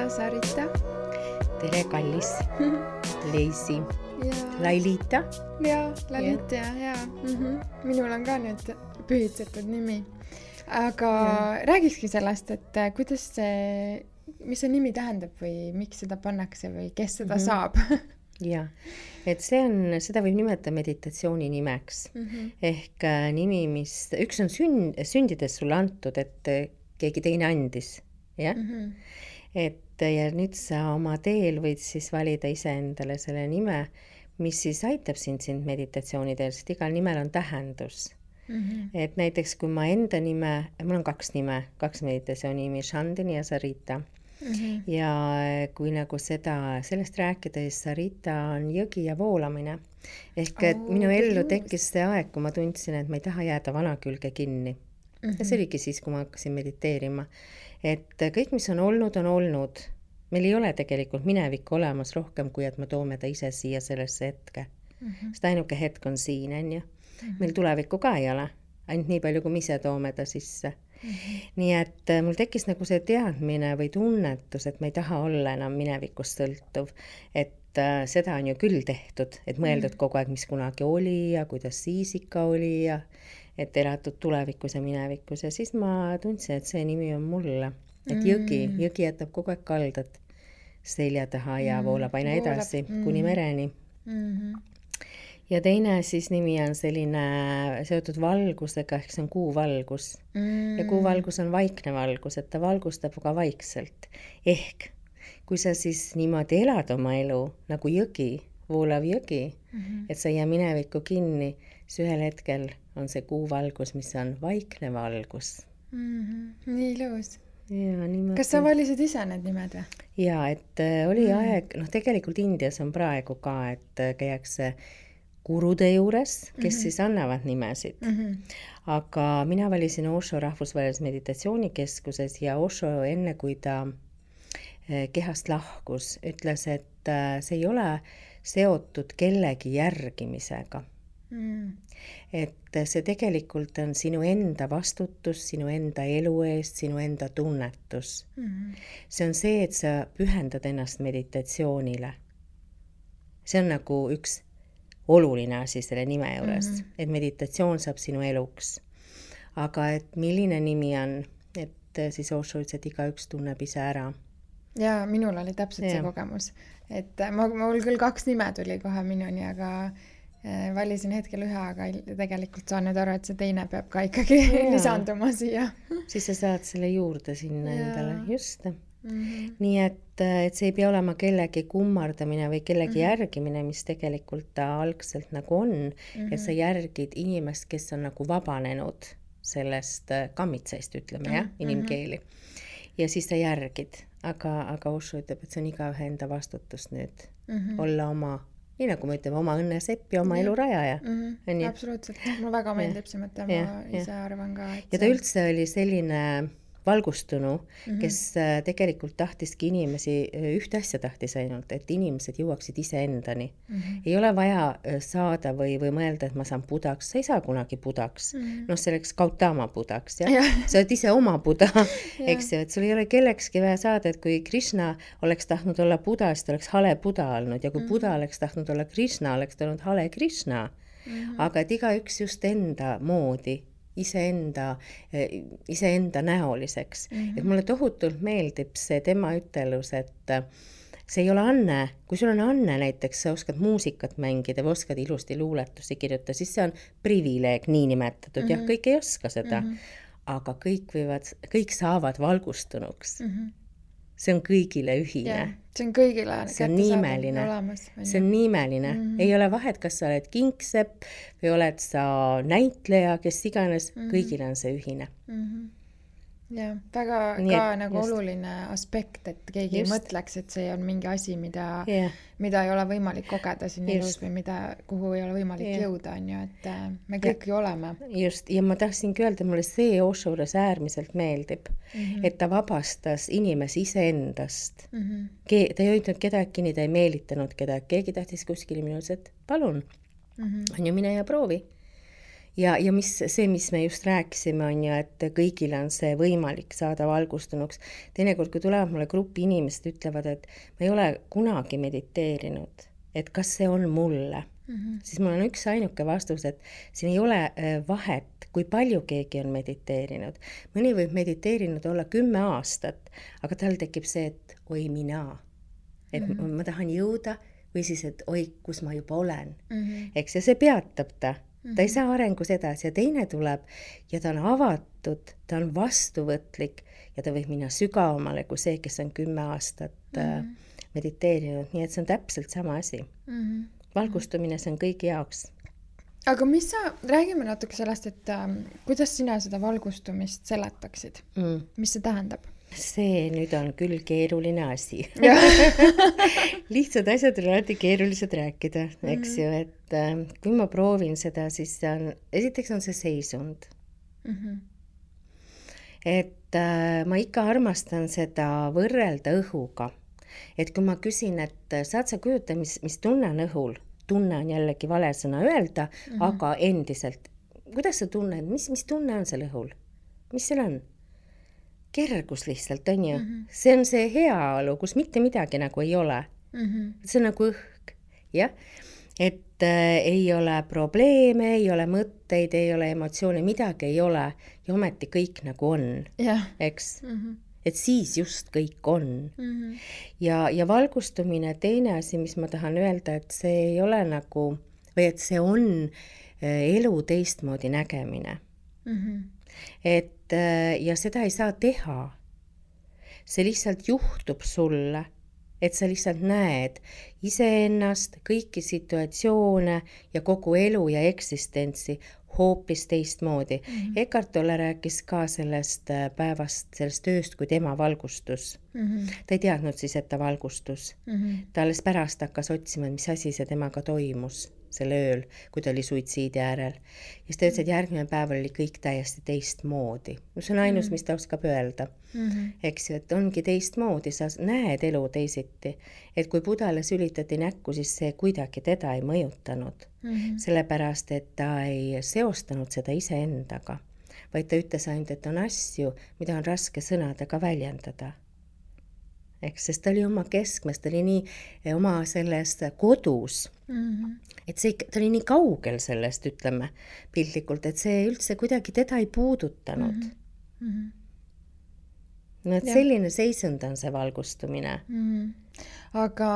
ja Sarita. Tere, kallis Leisi. Lailita. Ja, Lalita ja. Minul on ka nüüd pühitsetud nimi. Aga räägikski sellest, et kuidas see, mis see nimi tähendab või miks seda pannakse või kes seda saab? Ja, et seda võib nimetada meditatsiooni nimeks. Ehk nimi, mis üks on sündides sulle antud, et keegi teine andis. Ja? Et ja nüüd sa oma teel võid siis valida iseendale selle nime, mis siis aitab sind meditatsiooni teel, sest igal nimel on tähendus. Et näiteks kui ma enda nime, mul on kaks meditatsiooni nimi, Shandini ja Sarita. Ja kui nagu sellest rääkida, siis Sarita on jõgi ja voolamine. Ehk et minu ellu tekkis see aeg, kui ma tundsin, et ma ei taha jääda vana külge kinni. Ja see oligi siis, kui ma hakkasin mediteerima. Et kõik, mis on olnud, on olnud. Meil ei ole tegelikult minevikku olemas rohkem, kui et me toome ta ise siia sellesse hetke. Sest ainuke hetk on siin, on ju. Meil tulevikku ka ei ole. Ainult nii palju, kui me ise toome ta sisse. Nii et mul tekkis nagu see teadmine või tunnetus, et ma ei taha olla enam minevikust sõltuv. Et seda on ju küll tehtud, et mõeldud kogu aeg, mis kunagi oli ja kuidas siis ikka oli ja et elatud tulevikus ja minevikus. Ja siis ma tundsin, et see nimi on mulle. Et jõgi jätab kogu aeg kaldat selja taha ja voolab aina edasi kuni mereni. Ja teine siis nimi on selline seotud valgusega, ehk see on kuuvalgus. Ja kuuvalgus on vaikne valgus, et ta valgustab ka vaikselt. Ehk kui sa siis niimoodi elad oma elu nagu jõgi, voolav jõgi, et sa ei jää minevikku kinni, siis ühel hetkel on see kuuvalgus, mis on vaikne valgus. Nii ilus. Ja, kas sa valisid ise need nimed või? Ja, et oli aeg, tegelikult Indias on praegu ka, et käiakse gurude juures, kes siis annavad nimesid. Aga mina valisin Osho rahvusvahelises meditatsioonikeskuses ja Osho enne, kui ta kehast lahkus, ütles, et see ei ole seotud kellegi järgimisega. Et see tegelikult on sinu enda vastutus, sinu enda elu eest, sinu enda tunnetus. See on see, et sa pühendad ennast meditatsioonile. See on nagu üks oluline asi selle nime juures, et meditatsioon saab sinu eluks. Aga et milline nimi on, et siis Osho ütles, et igaüks tunneb ise ära. Ja minul oli täpselt see kogemus. Et mul küll 2 nime tuli kohe minuni, aga valisin hetkel ühe, aga tegelikult saan nüüd aru, et see teine peab ka ikkagi lisanduma siia. Siis sa saad selle juurde sinna endale, just. Nii et see ei pea olema kellegi kummardamine või kellegi järgimine, mis tegelikult ta algselt nagu on, et sa järgid inimest, kes on nagu vabanenud sellest kammitseist, ütleme, inimkeeli. Ja siis sa järgid, aga Osho ütleb, et see on igaühe enda vastutus nüüd olla oma, nii nagu me ütleme, oma õnnesepp ja oma elu rajaja. Absoluutselt, mulle väga meeldib see mõte, ma ise arvan ka. Ja ta üldse oli selline valgustunu, kes tegelikult tahtiski inimesi, ühte asja tahtis ainult, et inimesed jõuaksid ise endani. Ei ole vaja saada või mõelda, et ma saan budaks, sa ei saa kunagi budaks. Selleks Gautama budaks, ja? Sa oled ise oma buda, eks ju, et sul ei ole kellekski vaja saada, et kui Krishna oleks tahtnud olla buda, siis ta oleks hale buda olnud, ja kui buda oleks tahtnud olla Krishna, oleks ta olnud hale Krishna. Aga et igaüks just enda moodi, iseenda näoliseks. Et mulle tohutult meeldib see tema ütelus, et see ei ole anne. Kui sul on anne näiteks, sa oskad muusikat mängida või oskad ilusti luuletusi kirjutada, siis see on privileeg nii nimetatud. Jah, kõik ei oska seda. Aga kõik saavad valgustunuks. See on kõigile ühine. See on kõigile olemas. See on nimeline. Ei ole vahet, kas sa oled kingsepp või oled sa näitleja, kes iganes, kõigile on see ühine. Ja, väga ka nagu oluline aspekt, et keegi ei mõtleks, et see on mingi asi, mida ei ole võimalik kogeda siin elus või kuhu ei ole võimalik jõuda, on ju, et me kõik ju oleme. Just, ja ma tahtsingi öelda, mulle see Osho juures äärmiselt meeldib, et ta vabastas inimesi iseendast. Ta ei hoidnud kedagi kinni, ta ei meelitanud kedagi, keegi tahtis kuskil minus, et palun, on ju, mine ja proovi. ja mis me just rääkisime, on ju, et kõigil on see võimalik saada valgustunuks. Teinekord, kui tulevad mulle grupi inimesed, ütlevad, et ma ei ole kunagi mediteerinud, et kas see on mulle, siis mul on üks ainuke vastus, et siin ei ole vahet, kui palju keegi on mediteerinud. Mõni võib mediteerinud olla 10 aastat, aga tal tekib see, et oi mina, et ma tahan jõuda või siis, et oi, kus ma juba olen. Eks, ja see peatab ta ei saa arengus edasi ja teine tuleb ja ta on avatud, ta on vastuvõtlik ja ta võib minna sügavamale kui see, kes on 10 aastat mediteerinud, nii et see on täpselt sama asi. Valgustumine, see on kõigi jaoks. Aga räägime natuke sellest, et kuidas sina seda valgustumist seletaksid? Mis see tähendab? See nüüd on küll keeruline asi. Lihtsad asjad on alati keerulised rääkida, eks ju, et kui ma proovin seda, siis esiteks on see seisund. Et ma ikka armastan seda võrrelda õhuga. Et kui ma küsin, et saad sa kujuta, mis tunne on õhul, tunne on jällegi vale sõna öelda, aga endiselt, kuidas sa tunned, mis tunne on seal õhul? Mis seal on? Kergus lihtsalt, on ju. See on see heaolu, kus mitte midagi nagu ei ole. See on nagu õhk, jah. Et ei ole probleeme, ei ole mõtteid, ei ole emotsioone, midagi ei ole. Ja ometi kõik nagu on, eks. Et siis just kõik on. Ja valgustumine, teine asi, mis ma tahan öelda, et see ei ole nagu, või et see on elu teistmoodi nägemine. Et ja seda ei saa teha. See lihtsalt juhtub sulle, et sa lihtsalt näed iseennast, kõiki situatsioone ja kogu elu ja eksistentsi hoopis teistmoodi. Eckhart Tolle rääkis ka sellest päevast, sellest ööst, kui tema valgustus. Ta ei teadnud siis, et ta valgustus. Ta alles pärast hakkas otsima, mis asi see temaga toimus selle ööl, kui ta oli suitsiidi äärel. Ja siis ta ütles, et järgmine päev oli kõik täiesti teistmoodi. See on ainus, mis ta oskab öelda. Eks ju, et ongi teistmoodi, sa näed elu teisiti. Et kui Budale sülitati näkku, siis see kuidagi teda ei mõjutanud. Sellepärast, et ta ei seostanud seda iseendaga, vaid ta ütles ainult, et on asju, mida on raske sõnadega väljendada. Eks, sest ta oli oma keskmes, ta oli nii oma sellest kodus, et ta oli nii kaugel sellest, ütleme, piltlikult, et see üldse kuidagi teda ei puudutanud. No, et selline seisund on see valgustumine. Aga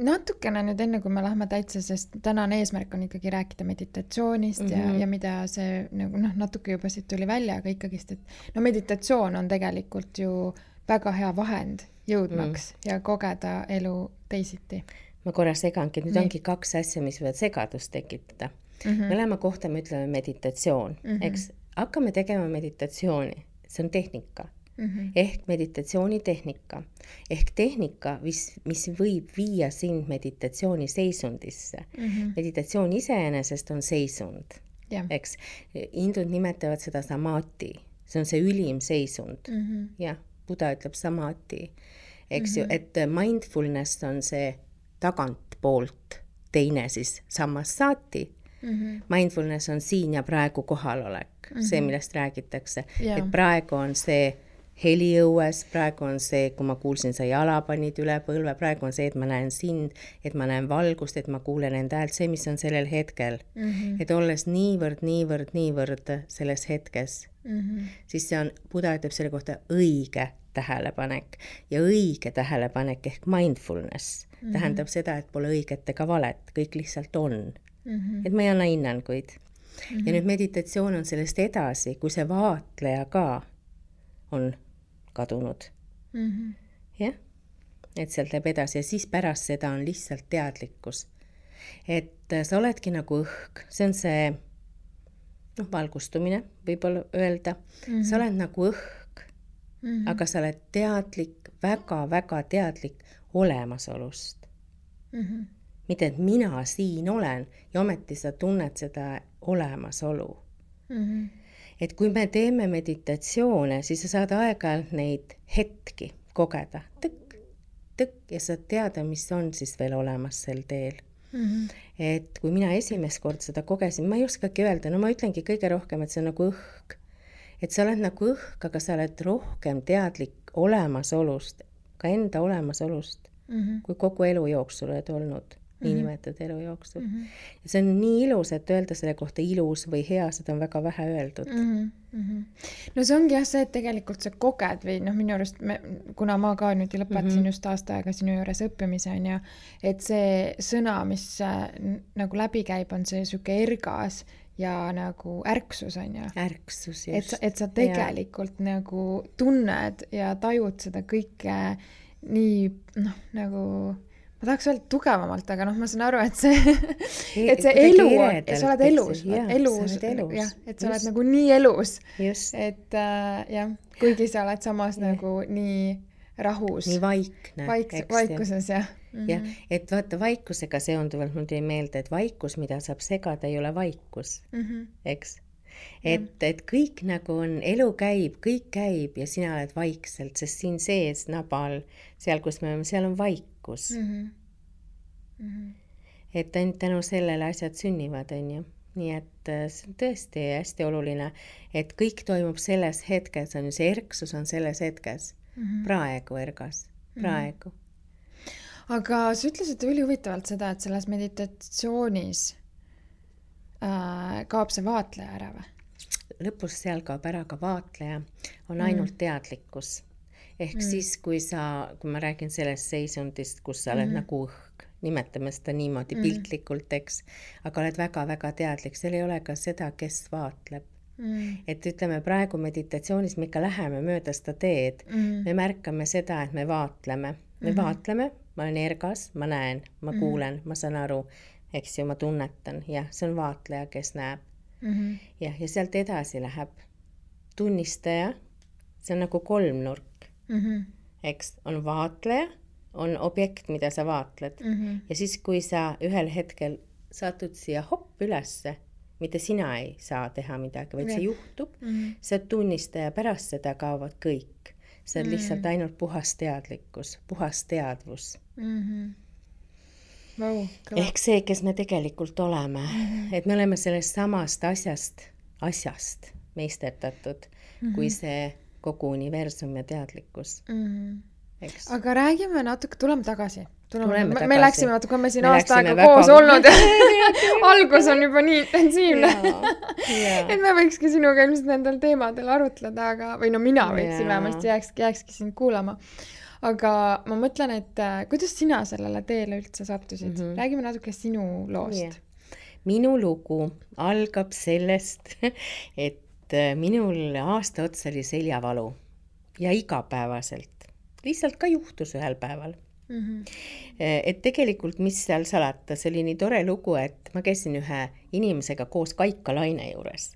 natukene nüüd enne, kui me lähme täitsa, sest tänane eesmärk on ikkagi rääkida meditatsioonist ja mida see natuke juba siit tuli välja, aga ikkagist, et meditatsioon on tegelikult ju väga hea vahend jõudmaks ja kogeda elu teisiti. Ma korra segangi, nüüd ongi 2 asja, mis võivad segadust tekitada. Mõlema kohta me ütleme meditatsioon, eks hakkame tegema meditatsiooni, see on tehnika, ehk meditatsioonitehnika, ehk tehnika, mis võib viia sind meditatsiooni seisundisse. Meditatsioon iseenesest on seisund, eks. Hindud nimetavad seda samadhi, see on see ülim seisund, jah. Buda ütleb samadhi, eks ju, et mindfulness on see tagantpoolt, teine siis sammas sati. Mindfulness on siin ja praegu kohalolek, see, millest räägitakse. Et praegu on see heli õues, praegu on see, kui ma kuulsin, sa jala panid üle põlve, praegu on see, et ma näen sind, et ma näen valgust, et ma kuulen enda häält, see, mis on sellel hetkel. Et olles niivõrd selles hetkes, siis see on, Buda ütleb selle kohta õige tähelepanek ja õige tähelepanek ehk mindfulness tähendab seda, et pole õiget ega valet, kõik lihtsalt on. Et ma ei anna hinnanguid. Ja nüüd meditatsioon on sellest edasi, kui see vaatleja ka on kadunud. Jah? Et sealt läheb edasi ja siis pärast seda on lihtsalt teadlikkus. Et sa oledki nagu õhk, see on see valgustumine, võib-olla öelda. Sa oled nagu õhk, aga sa oled teadlik, väga teadlik olemasolust. Mitte, et mina siin olen ja ometi sa tunned seda olemasolu. Et kui me teeme meditatsioone, siis sa saad aeg-ajalt neid hetki kogeda. Tõkk ja sa teada, mis on siis veel olemas sel teel. Et kui mina esimest kord seda kogesin, ma ei oskagi öelda, no ma ütlengi kõige rohkem, et see on nagu õhk. Et sa oled nagu õhk, aga sa oled rohkem teadlik olemasolust, ka enda olemasolust, kui kogu elu jooksul oled olnud. Niinimetatud elu jooksul. Ja see on nii ilus, et öelda selle kohta ilus või hea, seda on väga vähe öeldud. No see ongi jah see, et tegelikult sa koged või minu arust, kuna ma ka nüüd lõpetasin just aasta aega sinu juures õppimise on ja, et see sõna, mis nagu läbi käib, on see süke ergas ja nagu ärksus on ju. Ärksus, just. Et sa tegelikult nagu tunned ja tajud seda kõike nii, nagu ma tahaks öelda tugevamalt, aga ma saan aru, et see elu on, sa oled elus, et sa oled nagu nii elus, et jah, kuigi sa oled samas nagu nii rahus. Nii vaikne. Vaikuses, jah. Jah, et vaata vaikusega seonduvalt mul tuli meelde, et vaikus, mida saab segada, ei ole vaikus, eks? Et kõik nagu on, elu käib, kõik käib ja sina oled vaikselt, sest siin sees nabal, seal, kus me oleme, seal on vaikus. Et ainult tänu sellele asjad sünnivad, on ju. Nii et see on tõesti hästi oluline, et kõik toimub selles hetkes, on ju, see erksus on selles hetkes. Praegu ergas, praegu. Aga sa ütlesid üli huvitavalt seda, et selles meditatsioonis kaob see vaatleja ära või? Lõpus seal kaob ära ka vaatleja, on ainult teadlikkus. Ehk siis, kui ma räägin sellest seisundist, kus sa oled nagu õhk, nimetame seda niimoodi piltlikult, eks, aga oled väga-väga teadlik, seal ei ole ka seda, kes vaatleb. Et ütleme, praegu meditatsioonis me ikka läheme mööda seda teed, me märkame seda, et me vaatleme, ma olen ergas, ma näen, ma kuulen, ma saan aru, eks ju, ma tunnetan, jah, see on vaatleja, kes näeb. Ja sealt edasi läheb tunnistaja, see on nagu kolmnurk, eks, on vaatleja, on objekt, mida sa vaatled. Ja siis, kui sa ühel hetkel satud siia hopp ülesse, mitte sina ei saa teha midagi, vaid see juhtub, see tunnistaja pärast seda kaovad kõik. See on lihtsalt ainult puhas teadlikkus, puhas teadvus. Ehk see, kes me tegelikult oleme. Et me oleme sellest samast asjast meisterdatud, kui see kogu universum ja teadlikkus. Eks. Aga räägime natuke, tuleme tagasi. Me läksime natuke, me siin aasta aega koos olnud ja algus on juba nii intensiivne. Et me võikski sinuga ilmselt nendel teemadel arutleda, või mina võiksin vähemalt jääkski sind kuulama. Aga ma mõtlen, et kuidas sina sellele teele üldse sattusid? Räägime natuke sinu loost. Minu lugu algab sellest, et minul aasta otsa oli seljavalu ja igapäevaselt. Lihtsalt ka juhtus ühel päeval. Et tegelikult, mis seal salata, see oli nii tore lugu, et ma käisin ühe inimesega koos Kaika Laine juures.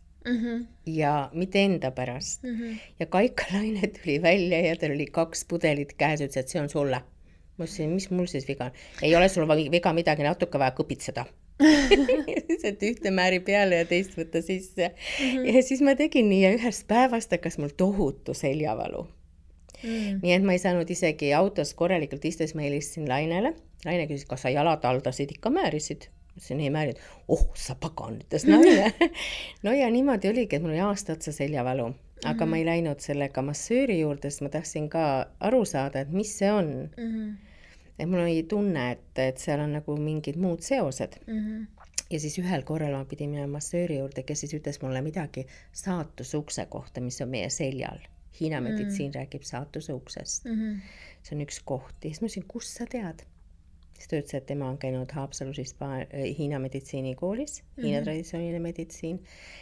Ja mitte enda pärast. Ja Kaika Laine tuli välja ja tal oli 2 pudelit käes, ütles, et see on sulle. Ma ütlesin, mis mul siis viga on? Ei ole sul viga midagi, natuke vaja kõpitseda. et ühte määri peale ja teist võtta sisse. Ja siis ma tegin nii ja ühest päevast hakkas mul tohutu seljavalu. Nii et ma ei saanud isegi autos korralikult istua, siis ma helistasin Lainele. Laine küsis, kas sa jalad aldasid, ikka määrisid. Ma ütlesin, ei määrid. Sa pagan, ütles Laine. No ja niimoodi oligi, et mul oli aasta otsa seljavalu. Aga ma ei läinud sellega massööri juurde, sest ma tahtsin ka aru saada, et mis see on. Et mul oli tunne, et seal on nagu mingid muud seosed. Ja siis ühel korral ma pidin minema massööri juurde, kes siis ütles mulle midagi saatusukse kohta, mis on meie seljal. Hiina meditsiin räägib saatuse uksest. See on üks koht. Ja siis ma ütlesin, kus sa tead? Siis ta ütles, et tema on käinud Haapsalus Hiina meditsiinikoolis, Hiina traditsiooniline meditsiin.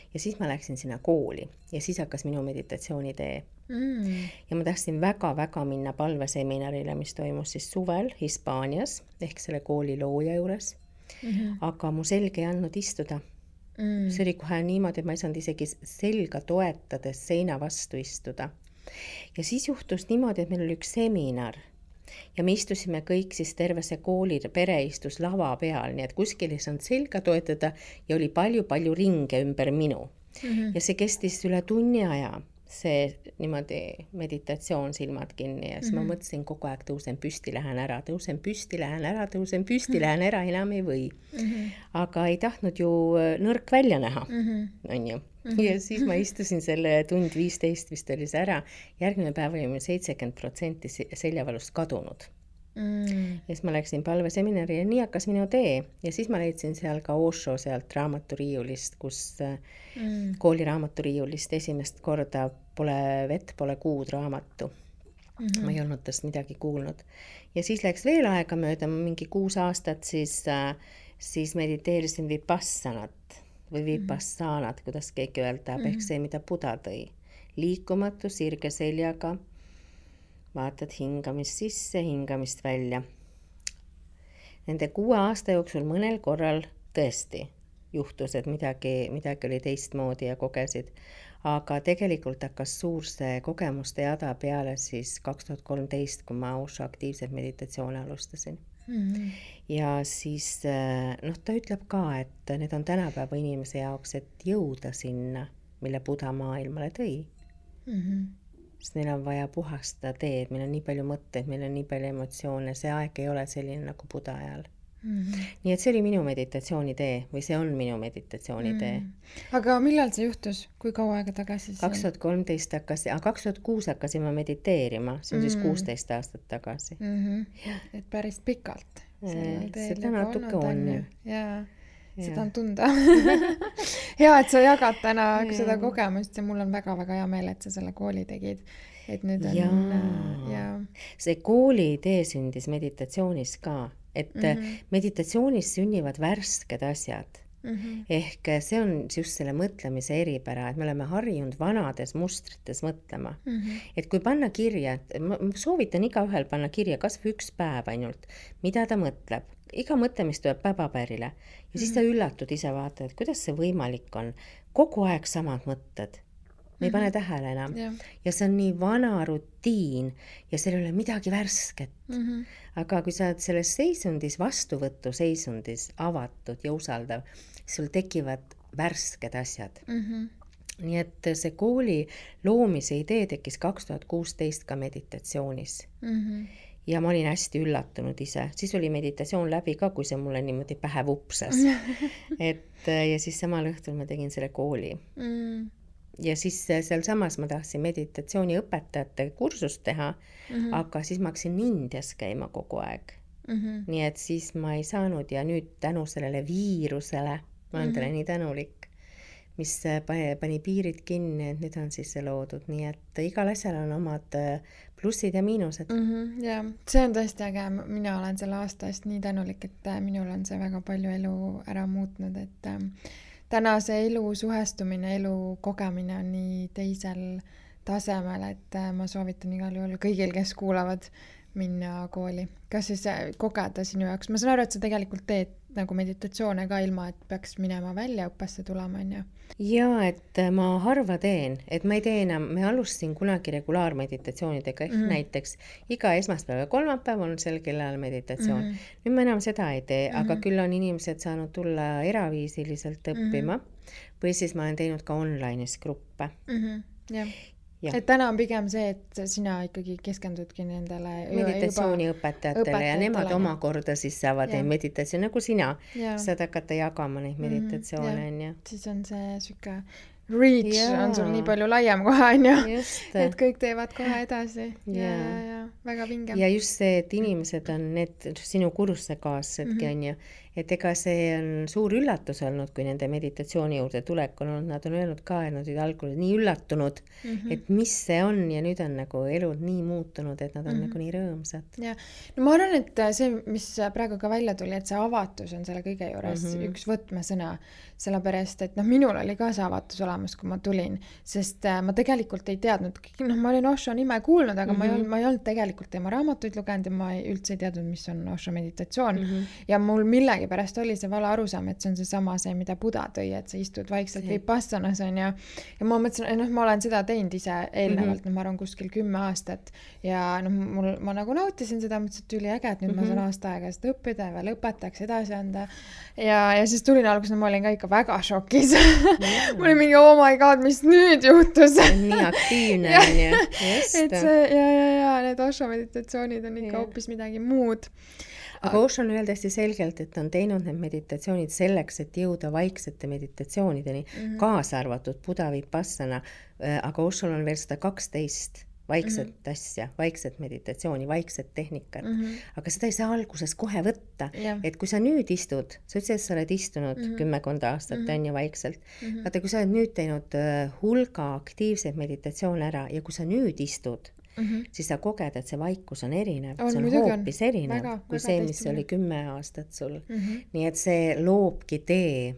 Ja siis ma läksin sinna kooli ja siis hakkas minu meditatsioonitee. Ja ma tahtsin väga-väga minna palveseminarile, mis toimus siis suvel Hispaanias, ehk selle kooli looja juures. Aga mu selg ei andnud istuda. See oli kohe niimoodi, et ma ei saanud isegi selga toetades seina vastu istuda. Ja siis juhtus niimoodi, et meil oli üks seminar ja me istusime kõik siis terve see kooli pere istus lava peal, nii et kuskil ei saanud selga toetada ja oli palju-palju ringe ümber minu. Ja see kestis üle tunni aja. see niimoodi meditatsioon, silmad kinni ja siis ma mõtlesin kogu aeg, tõusen püsti, lähen ära, tõusen püsti, lähen ära, tõusen püsti, lähen ära, enam ei või. Aga ei tahtnud ju nõrk välja näha, on ju. Ja siis ma istusin selle tund 15 vist oli see ära. Järgmine päev oli meil 70% seljavalust kadunud. Ja siis ma läksin palveseminari ja nii hakkas minu tee. Ja siis ma leidsin seal ka Osho sealt raamaturiiulist, kus kooli raamaturiiulist esimest korda pole vett, pole kuud raamatu. Ma ei olnud tast midagi kuulnud. Ja siis läks veel aega mööda, mingi 6 aastat, siis mediteerisin vipassanat või vipassanat, kuidas keegi öelda, ehk see, mida Buda tõi. Liikumatu, sirge seljaga, vaatad hingamist sisse, hingamist välja. Nende 6 aasta jooksul mõnel korral tõesti juhtus, et midagi oli teistmoodi ja kogesid. Aga tegelikult hakkas suur see kogemuste jada peale siis 2013, kui ma Osho aktiivselt meditatsioone alustasin. Ja siis ta ütleb ka, et need on tänapäeva inimese jaoks, et jõuda sinna, mille Buda maailmale tõi. Sest neil on vaja puhastada teed, meil on nii palju mõtteid, meil on nii palju emotsioone, see aeg ei ole selline nagu Buda ajal. Nii et see oli minu meditatsioonitee või see on minu meditatsioonitee. Aga millal see juhtus? Kui kaua aega tagasi? 2013 2006 hakkasin ma mediteerima, see on siis 16 aastat tagasi. Et päris pikalt. Seda natuke on. Jaa, seda on tunda. Hea, et sa jagad täna seda kogemust ja mul on väga-väga hea meel, et sa selle kooli tegid. Et nüüd on... See kooli idee sündis meditatsioonis ka. Et meditatsioonis sünnivad värsked asjad. Ehk see on just selle mõtlemise eripära, et me oleme harjunud vanades mustrites mõtlema. Et kui panna kirja, ma soovitan igaühel panna kirja kas või 1 päev ainult, mida ta mõtleb. Iga mõtlemist tuleb paberile ja siis ta üllatud ise vaata, et kuidas see võimalik on. Kogu aeg samad mõtted. Me ei pane tähele enam. Ja see on nii vana rutiin ja seal ei ole midagi värsket. Aga kui sa oled selles seisundis, vastuvõtu seisundis, avatud ja usaldav, sul tekivad värsked asjad. Nii et see kooli loomise idee tekkis 2016 ka meditatsioonis. Ja ma olin hästi üllatunud ise. Siis oli meditatsioon läbi ka, kui see mulle niimoodi pähe vupsas. Ja siis samal õhtul ma tegin selle kooli. Ja siis seal samas ma tahtsin meditatsiooni õpetajate kursust teha, aga siis ma hakkasin Indias käima kogu aeg. Nii et siis ma ei saanud ja nüüd tänu sellele viirusele, ma olen talle nii tänulik, mis pani piirid kinni, et nüüd on siis see loodud. Nii et igal asjal on omad plussid ja miinused. Ja see on tõesti äge. Mina olen selle aasta eest nii tänulik, et minul on see väga palju elu ära muutnud, et täna see elu suhestumine, elu kogemine on nii teisel tasemel, et ma soovitan igal juhul kõigil, kes kuulavad, minna kooli. Kas siis kogeda sinu jaoks? Ma saan aru, et sa tegelikult teed nagu meditatsioone ka ilma, et peaks minema välja õppesse tulema, on ju? Jaa, et ma harva teen, et ma ei tee enam, me alustasin kunagi regulaarmeditatsioonidega, ehk näiteks iga esmaspäev ja kolmapäev on sel kellal meditatsioon. Nüüd ma enam seda ei tee, aga küll on inimesed saanud tulla eraviisiliselt õppima või siis ma olen teinud ka online'is gruppe. Jah. Et täna on pigem see, et sina ikkagi keskendudki nendele meditatsiooniõpetajatele ja nemad omakorda siis saavad meditatsioon, nagu sina saad hakata jagama neid meditatsioone. Siis on see süke reach on sul nii palju laiem kohe, on ju, et kõik teevad kohe edasi. Ja väga vinge. Ja just see, et inimesed on need sinu kursuse kaassedki, on ju, et ega see on suur üllatus olnud, kui nende meditatsiooni juurde tulek on olnud, nad on öelnud ka, et nad olid algul nii üllatunud, et mis see on ja nüüd on nagu elud nii muutunud, et nad on nagu nii rõõmsad. Ja. No ma arvan, et see, mis praegu ka välja tuli, et see avatus on selle kõige juures üks võtmesõna, sellepärast, et minul oli ka see avatus olemas, kui ma tulin, sest ma tegelikult ei teadnud, ma olin Osho nime kuulnud, aga ma ei olnud tegelikult tema raamatuid lugenud ja ma üldse ei teadnud, mis on Osho meditatsioon ja mul millegi millegipärast oli see vale arusaam, et see on seesama see, mida Buda tõi, et sa istud vaikselt vipassanas on ja ma mõtlesin, ma olen seda teinud ise eelnevalt, ma arvan kuskil 10 aastat ja ma nagu nautisin seda, mõtlesin, et üliäge, et nüüd ma saan aasta aega seda õppida ja veel õpetajaks edasi anda ja siis tulin alguses, ma olin ka ikka väga šokis. Mul oli mingi, oh my god, mis nüüd juhtus? Nii aktiivne on ju. Et see, ja need Osho meditatsioonid on ikka hoopis midagi muud. Aga Osho on öelnud hästi selgelt, et on teinud need meditatsioonid selleks, et jõuda vaiksete meditatsioonideni, kaasa arvatud Buda Vipassana, aga Oshol on veel 112 vaikset asja, vaikset meditatsiooni, vaikset tehnikat. Aga seda ei saa alguses kohe võtta, et kui sa nüüd istud, sa ütlesid, et sa oled istunud 10 aastat on ju vaikselt, vaata, kui sa oled nüüd teinud hulga aktiivseid meditatsioone ära ja kui sa nüüd istud, siis sa koged, et see vaikus on erinev, see on hoopis erinev kui see, mis oli 10 aastat sul. Nii et see loobki tee.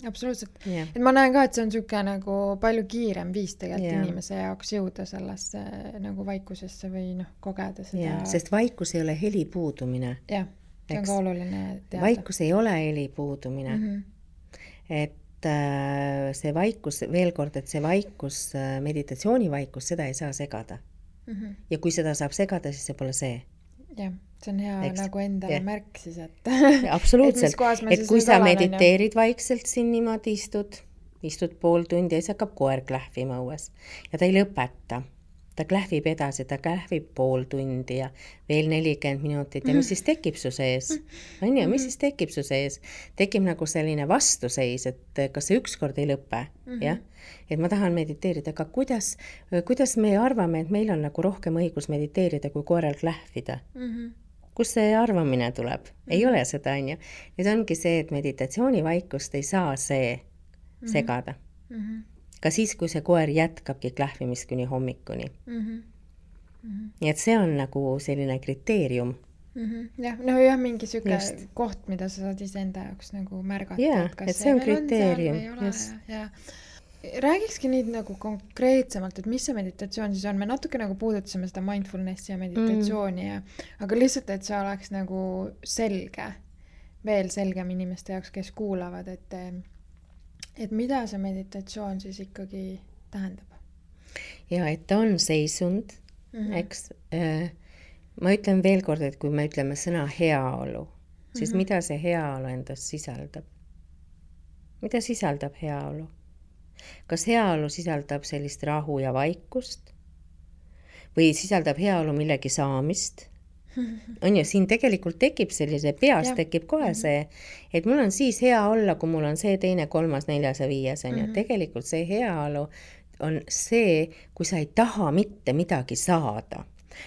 Absoluutselt. Et ma näen ka, et see on niisugune nagu palju kiirem viis tegelikult inimese jaoks jõuda sellesse nagu vaikusesse või kogeda seda. Sest vaikus ei ole heli puudumine. Jah, see on ka oluline teada. Vaikus ei ole heli puudumine. Et see vaikus, veel kord, et see vaikus, meditatsiooni vaikus, seda ei saa segada. Ja kui seda saab segada, siis see pole see. Jah, see on hea nagu endale märk siis, et absoluutselt, et kui sa mediteerid vaikselt siin niimoodi istud pool tundi ja siis hakkab koer klähvima õues ja ta ei lõpeta. Ta klähvib edasi, ta klähvib pool tundi ja veel 40 minutit ja mis siis tekib su sees? On ju, mis siis tekib su sees? Tekib nagu selline vastuseis, et kas see ükskord ei lõpe, jah? Et ma tahan mediteerida, aga kuidas me arvame, et meil on nagu rohkem õigus mediteerida, kui koeral klähvida? Kus see arvamine tuleb? Ei ole seda, on ju. Nüüd ongi see, et meditatsiooni vaikust ei saa see segada. Ka siis, kui see koer jätkabki klähvimist kuni hommikuni. Nii et see on nagu selline kriteerium. Jah, mingi süke koht, mida sa saad ise enda jaoks nagu märgata. Jah, et see on kriteerium. Räägikski nüüd nagu konkreetsemalt, et mis see meditatsioon siis on. Me natuke nagu puudutasime seda mindfulnessi ja meditatsiooni, aga lihtsalt, et see oleks nagu selge, veel selgem inimeste jaoks, kes kuulavad, et mida see meditatsioon siis ikkagi tähendab? Ja, et ta on seisund, eks. Ma ütlen veel kord, et kui me ütleme sõna heaolu, siis mida see heaolu endast sisaldab? Mida sisaldab heaolu? Kas heaolu sisaldab sellist rahu ja vaikust? Või sisaldab heaolu millegi saamist? On ju, siin tegelikult tekib sellise, peas tekib kohe see, et mul on siis hea olla, kui mul on see, teine, kolmas, neljas ja viies, on ju. Tegelikult see heaolu on see, kui sa ei taha mitte midagi saada.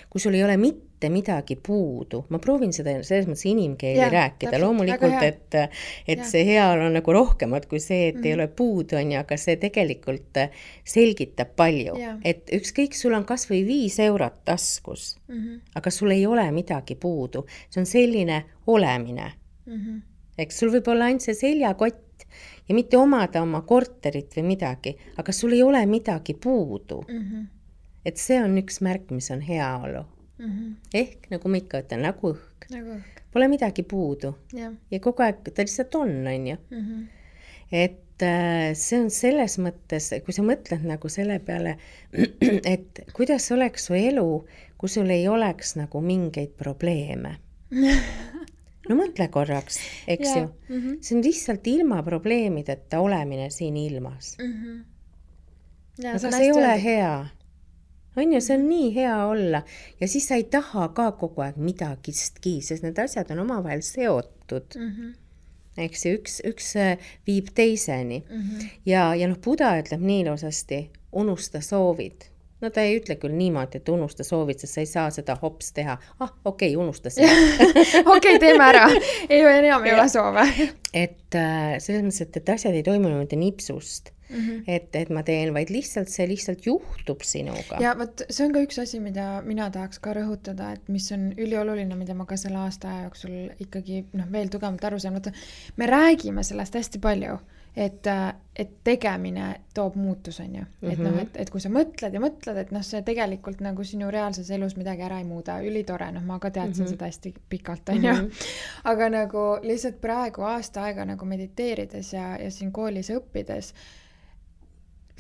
Kui sul ei ole mitte midagi puudu. Ma proovin seda selles mõttes inimkeeli rääkida. Loomulikult, et see heaolu on nagu rohkemat kui see, et ei ole puudu, on ju, aga see tegelikult selgitab palju. Et ükskõik, sul on kas või 5 eurot taskus, aga sul ei ole midagi puudu. See on selline olemine. Eks sul võib olla ainult see seljakott ja mitte omada oma korterit või midagi, aga sul ei ole midagi puudu. Et see on üks märk, mis on heaolu. Ehk, nagu ma ikka ütlen, nagu õhk. Pole midagi puudu. Ja kogu aeg ta lihtsalt on ju. Et see on selles mõttes, kui sa mõtled nagu selle peale, et kuidas oleks su elu, kui sul ei oleks nagu mingeid probleeme. No mõtle korraks, eks ju. See on lihtsalt ilma probleemideta olemine siin ilmas. Aga see ei ole hea. On ju, see on nii hea olla ja siis sa ei taha ka kogu aeg midagistki, sest need asjad on omavahel seotud. Eks üks viib teiseni. Ja Buda ütleb nii ilusasti, unusta soovid. No ta ei ütle küll niimoodi, et unusta soovid, sest sa ei saa seda hops teha. Okei, unusta seda. Okei, teeme ära. Enam ei ole soove. Et selles mõttes, et asjad ei toimu niimoodi nipsust. et ma teen, vaid see lihtsalt juhtub sinuga. Ja võt, see on ka üks asi, mida mina tahaks ka rõhutada, et mis on ülioluline, mida ma ka selle aasta aja jooksul ikkagi veel tugevalt aru saan. Me räägime sellest hästi palju, et tegemine toob muutus, on ju. Et kui sa mõtled ja mõtled, et see tegelikult nagu sinu reaalses elus midagi ära ei muuda, ülitore, ma ka teadsin seda hästi pikalt, on ju. Aga nagu lihtsalt praegu aasta aega nagu mediteerides ja siin koolis õppides,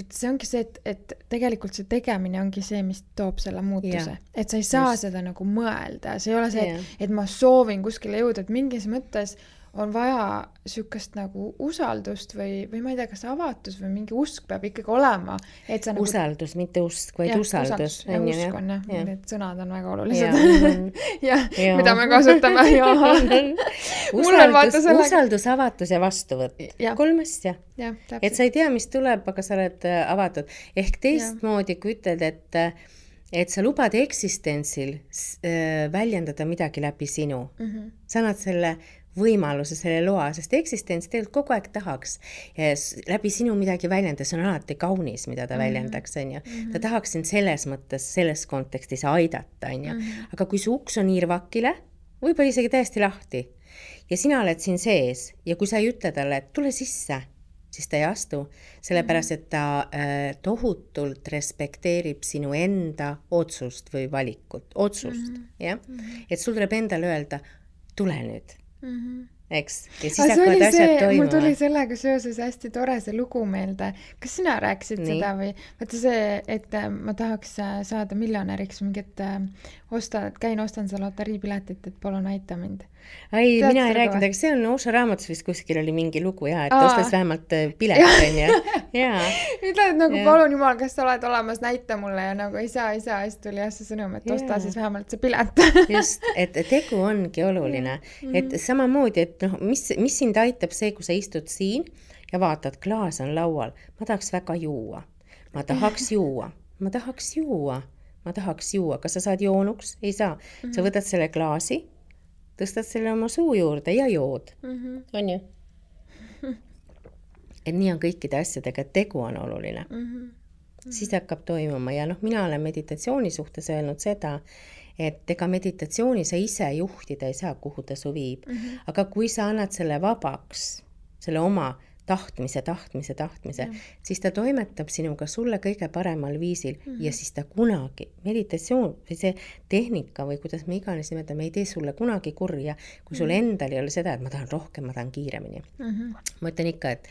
see ongi see, et tegelikult see tegemine ongi see, mis toob selle muutuse. Et sa ei saa seda nagu mõelda. See ei ole see, et ma soovin kuskile jõuda, et mingis mõttes on vaja sükast nagu usaldust või ma ei tea, kas avatus või mingi usk peab ikkagi olema. Et sa usaldus, nagu... mitte usk, vaid usaldus. Ja usk on, need sõnad on väga olulised. Ja, mida me kasutame. Usaldus, avatus ja vastuvõtt. 3 asja. Et sa ei tea, mis tuleb, aga sa oled avatud. Ehk teistmoodi, kui ütled, et sa lubad eksistentsil väljendada midagi läbi sinu. Sa annad selle võimaluse, selle loa, sest eksistents tegelikult kogu aeg tahaks läbi sinu midagi väljendada, see on alati kaunis, mida ta väljendaks, on ju. Ta tahaks sind selles mõttes, selles kontekstis aidata, on ju. Aga kui su uks on irvakile, võib-olla isegi täiesti lahti ja sina oled siin sees ja kui sa ei ütle talle, et tule sisse, siis ta ei astu, sellepärast, et ta tohutult respekteerib sinu enda otsust või valikut, otsust, jah? Et sul tuleb endale öelda, tule nüüd. Eks? Ja siis hakkavad asjad toimuma. Mul tuli sellega seoses hästi tore see lugu meelde. Kas sina rääkisid seda või? Vaata see, et ma tahaks saada miljonäriks mingit käin ostan seda loteriipiletit, et palun aita mind. Ei, mina ei rääkinud, aga see on Oša raamatus vist kuskil oli mingi lugu ja, et ostas vähemalt pilet, on ju. Ütled nagu palun jumal, kas sa oled olemas, näita mulle ja nagu ei saa, siis tuli see sõnum, et osta siis vähemalt see pilet. Just, et tegu ongi oluline. Et samamoodi, et mis sind aitab see, kui sa istud siin ja vaatad, klaas on laual. Ma tahaks väga juua. Ma tahaks juua. Kas sa saad joonuks? Ei saa. Sa võtad selle klaasi, tõstad selle oma suu juurde ja jood. On ju? Et nii on kõikide asjadega, et tegu on oluline. Siis hakkab toimuma ja mina olen meditatsiooni suhtes öelnud seda, et ega meditatsiooni sa ise juhtida ei saa, kuhu ta su viib. Aga kui sa annad selle vabaks, selle oma tahtmise, siis ta toimetab sinuga sulle kõige paremal viisil ja siis ta kunagi, meditatsioon või see tehnika või kuidas me iganes nimetame, ei tee sulle kunagi kurja, kui sul endal ei ole seda, et ma tahan rohkem, ma tahan kiiremini. Ma ütlen ikka, et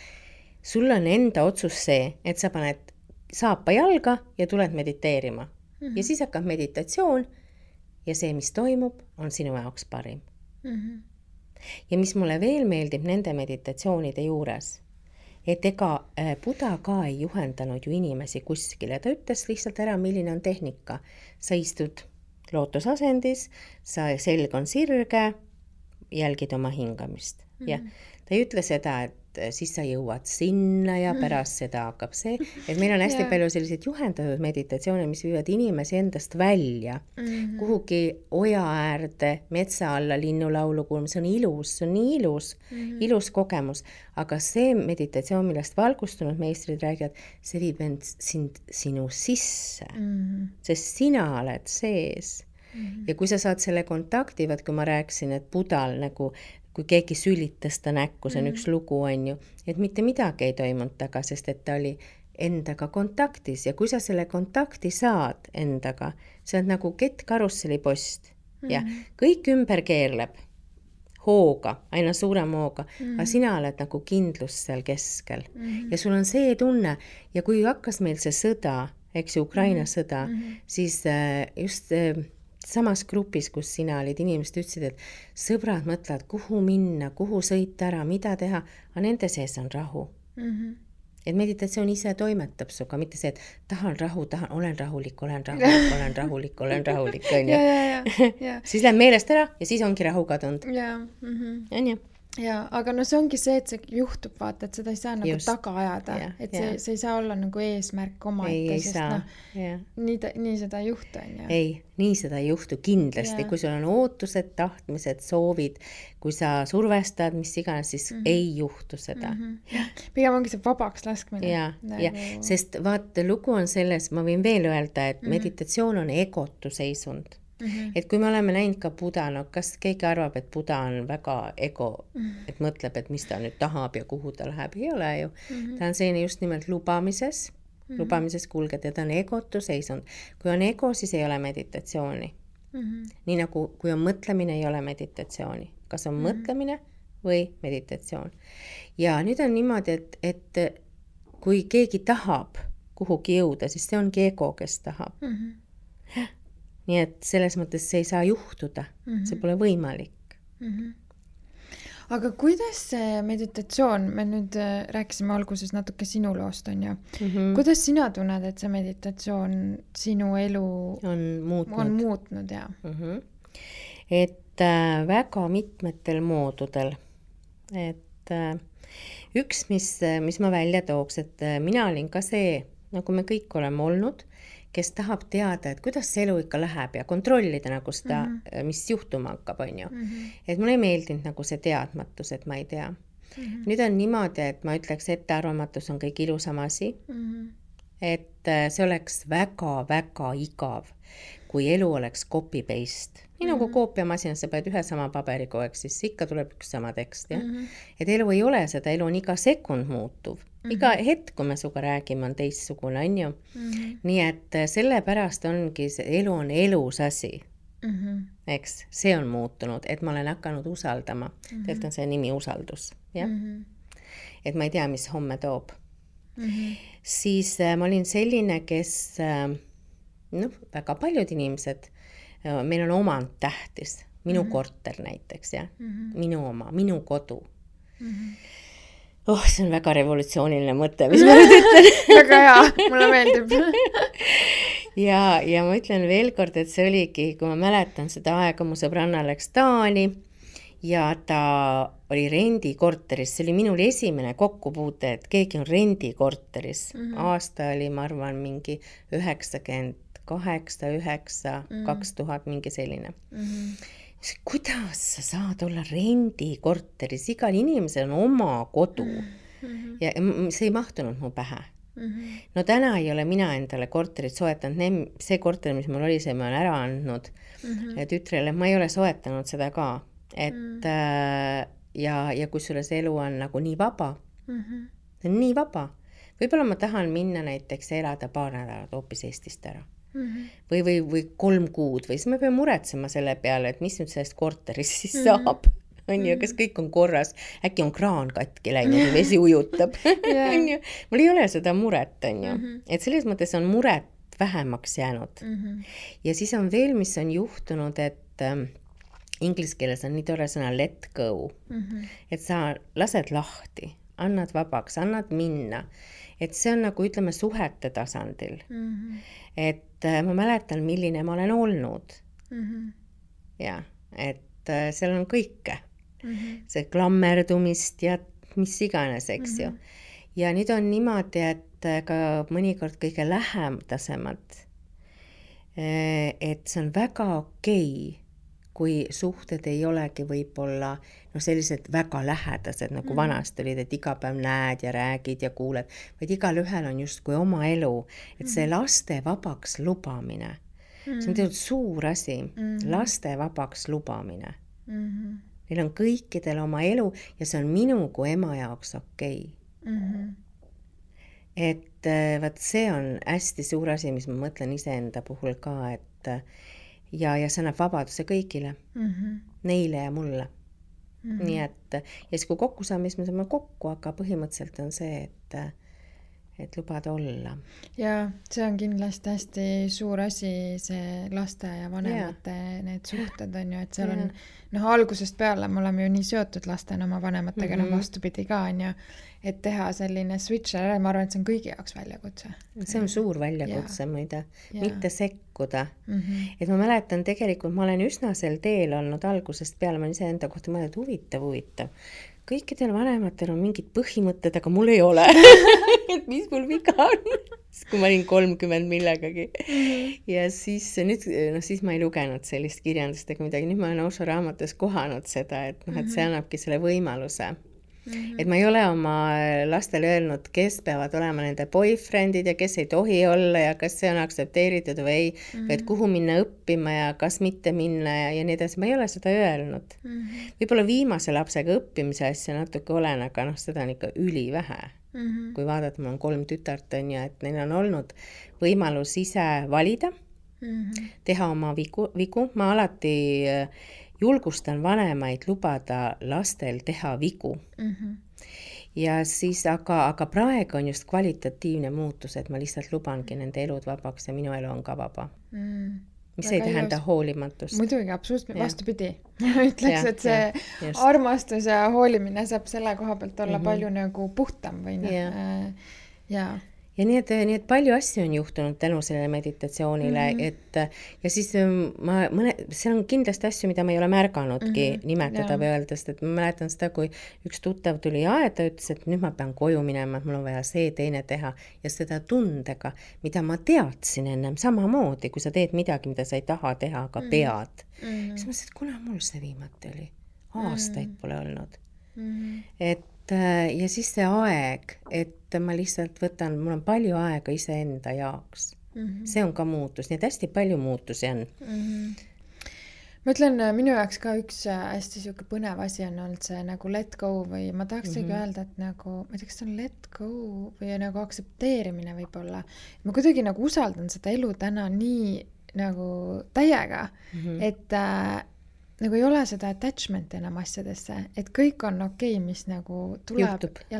sul on enda otsus see, et sa paned saapa jalga ja tuled mediteerima. Ja siis hakkab meditatsioon ja see, mis toimub, on sinu jaoks parim. Ja mis mulle veel meeldib nende meditatsioonide juures, et ega Buda ka ei juhendanud ju inimesi kuskile. Ta ütles lihtsalt ära, milline on tehnika. Sa istud lootusasendis, sa selg on sirge, jälgid oma hingamist. Ja ta ei ütle seda, et siis sa jõuad sinna ja pärast seda hakkab see, et meil on hästi palju selliseid juhendatud meditatsioone, mis viivad inimesi endast välja, kuhugi oja äärde, metsa alla, linnulaulu kuulma, see on ilus, see on nii ilus kogemus, aga see meditatsioon, millest valgustunud meistrid räägivad, see viib end sinu sisse, sest sina oled sees. Ja kui sa saad selle kontakti, vaat kui ma rääkisin, et Budal nagu kui keegi sülitas ta näkku, see on üks lugu, on ju, et mitte midagi ei toimunud taga, sest et ta oli endaga kontaktis ja kui sa selle kontakti saad endaga, see on nagu kettkarusselipost ja kõik ümber keerleb hooga, aina suurem hooga, aga sina oled nagu kindlus seal keskel ja sul on see tunne ja kui hakkas meil see sõda, eks ju, Ukraina sõda, siis just samas grupis, kus sina olid, inimesed ütlesid, et sõbrad mõtlevad, kuhu minna, kuhu sõita ära, mida teha, aga nende sees on rahu. Et meditatsioon ise toimetab suga, mitte see, et tahan rahu, olen rahulik, on ju. Siis läheb meelest ära ja siis ongi rahu kadunud. On ju? ja, aga no see ongi see, et see juhtub, vaata, et seda ei saa nagu taga ajada, et see ei saa olla nagu eesmärk omaette, sest nii seda ei juhtu, on ju. Ei, nii seda ei juhtu kindlasti, kui sul on ootused, tahtmised, soovid, kui sa survestad, mis iganes, siis ei juhtu seda. Pigem ongi see vabaks laskmine. Ja, sest vaata, lugu on selles, ma võin veel öelda, et meditatsioon on egotu seisund. Et kui me oleme näinud ka Buda, no kas keegi arvab, et Buda on väga ego, et mõtleb, et mis ta nüüd tahab ja kuhu ta läheb, ei ole ju. Ta on selline just nimelt lubamises kulged ja ta on egotu seisund. Kui on ego, siis ei ole meditatsiooni. Nii nagu kui on mõtlemine, ei ole meditatsiooni. Kas on mõtlemine või meditatsioon. Ja nüüd on niimoodi, et kui keegi tahab kuhugi jõuda, siis see ongi ego, kes tahab. Nii et selles mõttes see ei saa juhtuda, see pole võimalik. Aga kuidas see meditatsioon, me nüüd rääkisime alguses natuke sinu loost, on ju. Kuidas sina tunned, et see meditatsioon sinu elu on muutnud ja? Et väga mitmetel moodudel. Et üks, mis ma välja tooks, et mina olin ka see, nagu me kõik oleme olnud, kes tahab teada, et kuidas see elu ikka läheb ja kontrollida nagu seda, mis juhtuma hakkab, on ju. Et mulle ei meeldinud nagu see teadmatus, et ma ei tea. Nüüd on niimoodi, et ma ütleks, ettearvamatus on kõik ilusam asi. Et see oleks väga-väga igav, kui elu oleks copy-paste. Nii nagu koopiamasinas sa paned ühe sama paberi kogu aeg, siis ikka tuleb üks sama tekst. Ja? Et elu ei ole seda, elu on iga sekund muutuv. Iga hetk, kui me suga räägime, on teistsugune, on ju. Nii et sellepärast ongi, elu on elus asi. Eks, see on muutunud, et ma olen hakanud usaldama. Tegelikult on see nimi usaldus. Ja? Et ma ei tea, mis homme toob. Siis ma olin selline, kes, väga paljud inimesed, meil on omand tähtis. Minu korter näiteks, ja? Minu oma, minu kodu. See on väga revolutsiooniline mõte, mis ma nüüd ütlen. Väga hea, mulle meeldib. ja ma ütlen veel kord, et see oligi, kui ma mäletan seda aega, mu sõbranna läks Taani ja ta oli rendikorteris. See oli minul esimene kokkupuute, et keegi on rendikorteris. Aasta oli, ma arvan, mingi 98, 9, 2000, mingi selline. Kuidas sa saad olla rendikorteris? Igal inimesel on oma kodu. Ja see ei mahtunud mu pähe. No täna ei ole mina endale korterit soetanud. See korter, mis mul oli, see ma olen ära andnud tütrele. Ma ei ole soetanud seda ka. Et, ja kusjuures elu on nagu nii vaba. See on nii vaba. Võib-olla ma tahan minna näiteks elada paar nädalat hoopis Eestist ära. Või 3 kuud või siis me peame muretsema selle peale, et mis nüüd sellest korterist siis saab, on ju, kas kõik on korras, äkki on kraan katki läinud ja vesi ujutab. Mul ei ole seda muret, on ju, et selles mõttes on muret vähemaks jäänud. Ja siis on veel, mis on juhtunud, et inglise keeles on nii tore sõna let go, et sa lased lahti, annad vabaks, annad minna. Et see on nagu, ütleme, suhete tasandil. Et ma mäletan, milline ma olen olnud. Ja, et seal on kõike. See klammerdumist ja mis iganes, eks ju. Ja nüüd on niimoodi, et ka mõnikord kõige lähemdasemad, et see on väga okei, kui suhted ei olegi võib-olla sellised väga lähedased, nagu vanasti olid, et iga päev näed ja räägid ja kuuled, vaid igal ühel on just kui oma elu, et see laste vabaks lubamine, see on tegelikult suur asi, laste vabaks lubamine. Neil on kõikidel oma elu ja see on minu kui ema jaoks okei. Et vaat see on hästi suur asi, mis ma mõtlen iseenda puhul ka, et ja see annab vabaduse kõigile, neile ja mulle. Nii et, ja siis kui kokku saame, siis me saame kokku, aga põhimõtteliselt on see, et lubada olla. Ja see on kindlasti hästi suur asi, see laste ja vanemate need suhted on ju, et seal on algusest peale me oleme ju nii seotud lastena oma vanematega, vastupidi ka on ju, et teha selline switch, ma arvan, et see on kõigi jaoks väljakutse. See on suur väljakutse muide, mitte sekkuda. Et ma mäletan tegelikult, ma olen üsna sel teel olnud algusest peale, ma olen ise enda kohta mõelnud huvitav. Kõikidel vanematel on mingid põhimõtted, aga mul ei ole. Et mis mul viga on? Kui ma olin 30 millegagi. Ja siis, nüüd, siis ma ei lugenud sellist kirjandust ega midagi. Nüüd ma olen Osho raamatus kohanud seda, et, et see annabki selle võimaluse. Et ma ei ole oma lastele öelnud, kes peavad olema nende boyfriendid ja kes ei tohi olla ja kas see on aktsepteeritud või ei, et kuhu minna õppima ja kas mitte minna ja nii edasi. Ma ei ole seda öelnud. Võib-olla viimase lapsega õppimise asja natuke olen, aga seda on ikka ülivähe. Kui vaadata, mul on 3 tütart on ja et neil on olnud võimalus ise valida, teha oma vigu. Ma alati julgustan vanemaid lubada lastel teha vigu. Ja siis, aga praegu on just kvalitatiivne muutus, et ma lihtsalt lubangi nende elud vabaks ja minu elu on ka vaba. Mis ei tähenda hoolimatust. Muidugi, absoluutselt vastupidi. Ütleks, et see armastus ja hoolimine saab selle koha pealt olla palju nagu puhtam või Ja nii et palju asju on juhtunud tänu sellele meditatsioonile, et ja siis see on kindlasti asju, mida ma ei ole märganudki nimetada või öeldes, et ma mäletan seda, kui üks tuttav tuli aeda, ütles, et nüüd ma pean koju minema, et mul on vaja see teine teha ja seda tundega, mida ma teadsin ennem samamoodi, kui sa teed midagi, mida sa ei taha teha, aga pead. Siis ma ütlesin, et kuna mul see viimati oli? Aastaid pole olnud. Ja siis see aeg, et ma lihtsalt võtan, mul on palju aega iseenda jaoks. See on ka muutus, nii et hästi palju muutusi on. Ma ütlen, minu jaoks ka üks hästi siuke põnev asi on olnud see nagu let go või ma tahaksegi öelda, et nagu, ma ei tea, kas see on let go või nagu aksepteerimine võib-olla. Ma kuidagi nagu usaldan seda elu täna nii nagu täiega, et nagu ei ole seda attachment enam asjadesse, et kõik on okei, mis nagu tuleb juhtub. Ja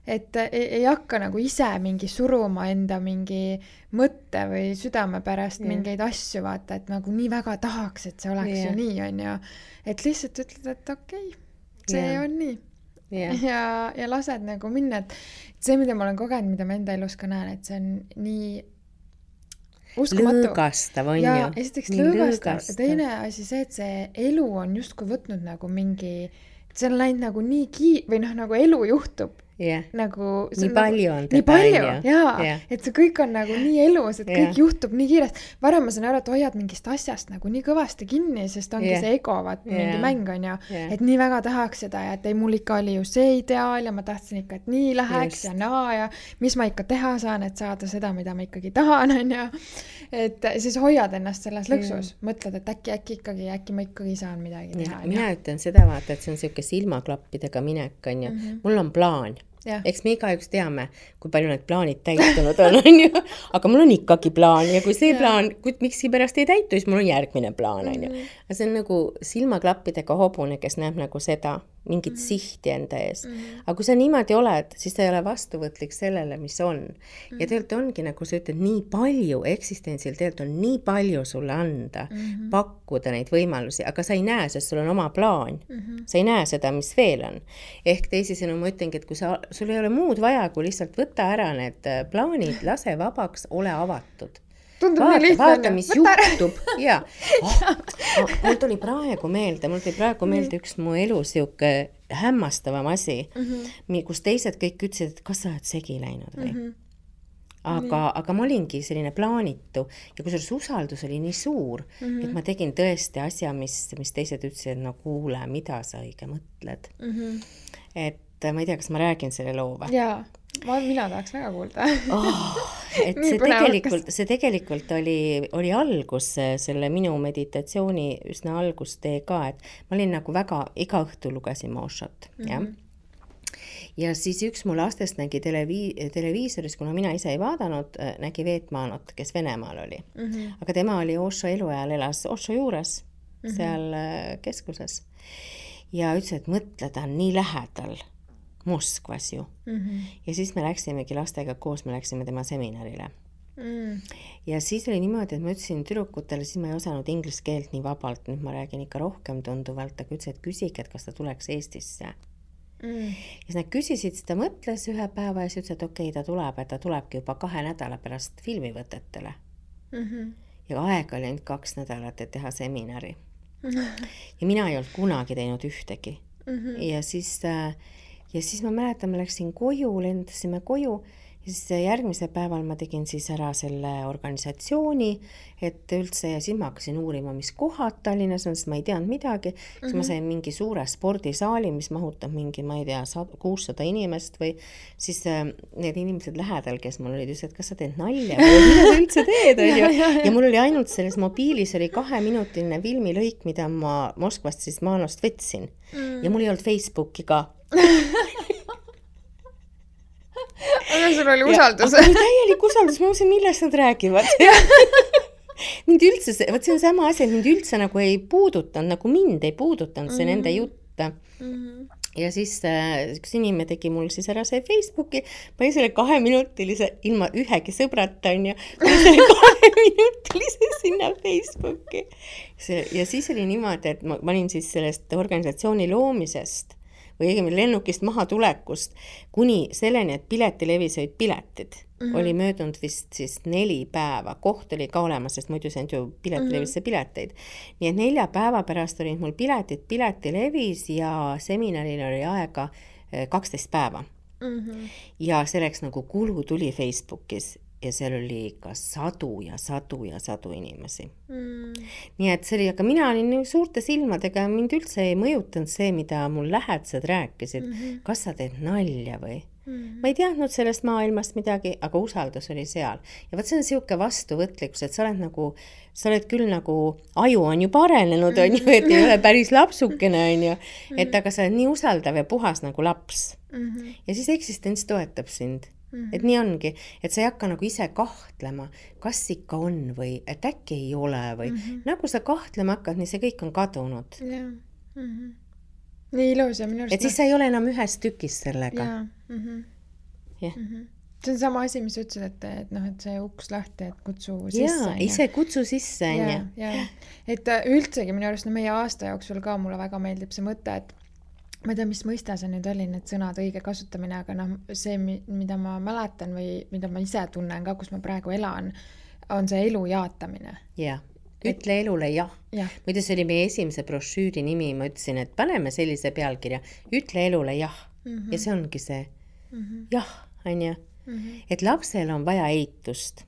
et ei hakka nagu ise mingi suruma enda mingi mõtte või südame pärast mingeid asju vaata, et nagu nii väga tahaks, et see oleks ju nii on ju, et lihtsalt ütled, et okei, see on nii ja lased nagu minna, et see, mida ma olen kogenud, mida ma enda elus ka näen, et see on nii uskumatu. Lõõgastav on ju. Ja esiteks lõõgastav. Teine asi see, et see elu on justkui võtnud nagu mingi, see on läinud nagu nii või nagu elu juhtub. Nagu, nii palju on nii palju, et see kõik on nagu nii elus, et kõik juhtub nii kiiresti. Varem ma saan aru, et hoiad mingist asjast nagu nii kõvasti kinni, sest ongi see ego, mingi mäng on ju, et nii väga tahaks seda ja et ei, mul ikka oli ju see ideaal ja ma tahtsin ikka, et nii läheks ja naa ja mis ma ikka teha saan, et saada seda, mida ma ikkagi tahan, on ju. Et siis hoiad ennast selles lõksus, mõtled, et äkki ma ikkagi saan midagi teha. Mina ütlen seda vaata, et see on selline silmaklappidega minek, on ju. Mul on plaan. Eks me igaüks teame, kui palju need plaanid täitunud on ju? Aga mul on ikkagi plaan ja kui see plaan, miksi pärast ei täitu, siis mul on järgmine plaan on ju. See on nagu silmaklappidega hobune, kes näeb nagu seda, mingit sihti enda ees. Aga kui sa niimoodi oled, siis ta ei ole vastuvõtlik sellele, mis on. Ja tegelikult ongi, nagu sa ütled, nii palju eksistentsil tegelikult on nii palju sulle anda, pakkuda neid võimalusi, aga sa ei näe, sest sul on oma plaan. Sa ei näe seda, mis veel on. Ehk teisisõnu ma ütlengi, et kui sul ei ole muud vaja, kui lihtsalt võtta ära need plaanid, lase vabaks, ole avatud. Vaata, mis juhtub. Mul tuli praegu meelde üks mu elus siuke hämmastavam asi, kus teised kõik ütlesid, et kas sa oled segi läinud või? Aga ma olingi selline plaanitu ja kui usaldus oli nii suur, et ma tegin tõesti asja, mis teised ütlesid, no kuule, mida sa õige mõtled. Et ma ei tea, kas ma räägin selle loo või? Jaa. Mina tahaks väga kuulda. Et see tegelikult oli algus, selle minu meditatsiooni üsna algustee ka, et ma olin nagu väga, iga õhtu lugesin Oshot, ja siis üks mu lastest nägi televiisoris, kuna mina ise ei vaadanud, nägi Veetmaanot, kes Venemaal oli. Aga tema oli Osho eluajal, elas Osho juures, seal keskuses. Ja ütles, et mõtle, ta on nii lähedal. Moskvas ju. Ja siis me läksimegi lastega koos, me läksime tema seminarile. Ja siis oli niimoodi, et ma ütlesin tüdrukutele, siis ma ei osanud inglise keelt nii vabalt, nüüd ma räägin ikka rohkem tunduvalt, aga ütlesin, et küsige, et kas ta tuleks Eestisse. Ja siis nad küsisid, siis ta mõtles ühe päeva ja siis ütles, et okei, ta tuleb, et ta tulebki juba 2 nädala pärast filmivõtetele. Ja aega oli ainult 2 nädalat, et teha seminari. Ja mina ei olnud kunagi teinud ühtegi. Ja siis ma mäletan, ma läksin koju, lendasime koju ja siis järgmise päeval ma tegin siis ära selle organisatsiooni, et üldse ja siis ma hakkasin uurima, mis kohad Tallinnas on, sest ma ei teadnud midagi. Siis ma sain mingi suure spordisaali, mis mahutab mingi, ma ei tea, 600 inimest või siis need inimesed lähedal, kes mul olid, ütlesid, et kas sa teed nalja või mida sa üldse teed? Ja mul oli ainult selles mobiilis oli 2-minutiline filmilõik, mida ma Moskvast siis Maanost võtsin ja mul ei olnud Facebooki ka. Aga sul oli usaldus. Aga täielik usaldus, ma mõtlesin, millest nad räägivad. Mind üldse, võt see on sama asi, et mind üldse nagu ei puudutanud, nagu mind ei puudutanud see nende jutt. Ja siis üks inimene tegi mul siis ära see Facebooki, ma olin selle 2-minutilise, ilma ühegi sõbrata on ja selle 2-minutilise sinna Facebooki. Ja siis oli niimoodi, et ma olin siis sellest organisatsiooni loomisest või õigemini lennukist maha tulekust kuni selleni, et piletilevis olid piletid. Oli möödunud vist siis 4 päeva. Koht oli ka olemas, sest muidu see on ju piletilevisse pileteid. Nii et 4 päeva pärast olid mul piletilevis ja seminaril oli aega 12 päeva. Ja selleks nagu kulu tuli Facebookis. Ja seal oli ikka sadu inimesi. Nii et see oli, aga mina olin suurte silmadega, mind üldse ei mõjutanud see, mida mul lähedased rääkisid. Kas sa teed nalja või? Ma ei teadnud sellest maailmast midagi, aga usaldus oli seal. Ja võt see on siuke vastuvõtlikkus, et sa oled küll nagu, aju on ju parenenud, on ju, et ei ole päris lapsukene, on ju. Et aga sa oled nii usaldav ja puhas nagu laps. Ja siis eksistents toetab sind. Et nii ongi, et sa ei hakka nagu ise kahtlema, kas ikka on või et äkki ei ole või nagu sa kahtlema hakkad, nii see kõik on kadunud. Nii ilus ja minu arust. Et siis sa ei ole enam ühes tükis sellega. See on sama asi, mis ütlesid, et see uks lahti, et kutsu sisse. Ise kutsu sisse. Et üldsegi minu arust meie aasta jooksul ka mulle väga meeldib see mõte, et ma ei tea, mis mõista see nüüd oli, need sõnad õige kasutamine, aga see, mida ma mäletan või mida ma ise tunnen ka, kus ma praegu elan, on see elu jaatamine. Ütle elule jah. Muide, see oli meie esimese brošüüri nimi, ma ütlesin, et paneme sellise pealkirja, ütle elule jah. Ja see ongi see jah, on ju. Et lapsel on vaja eitust.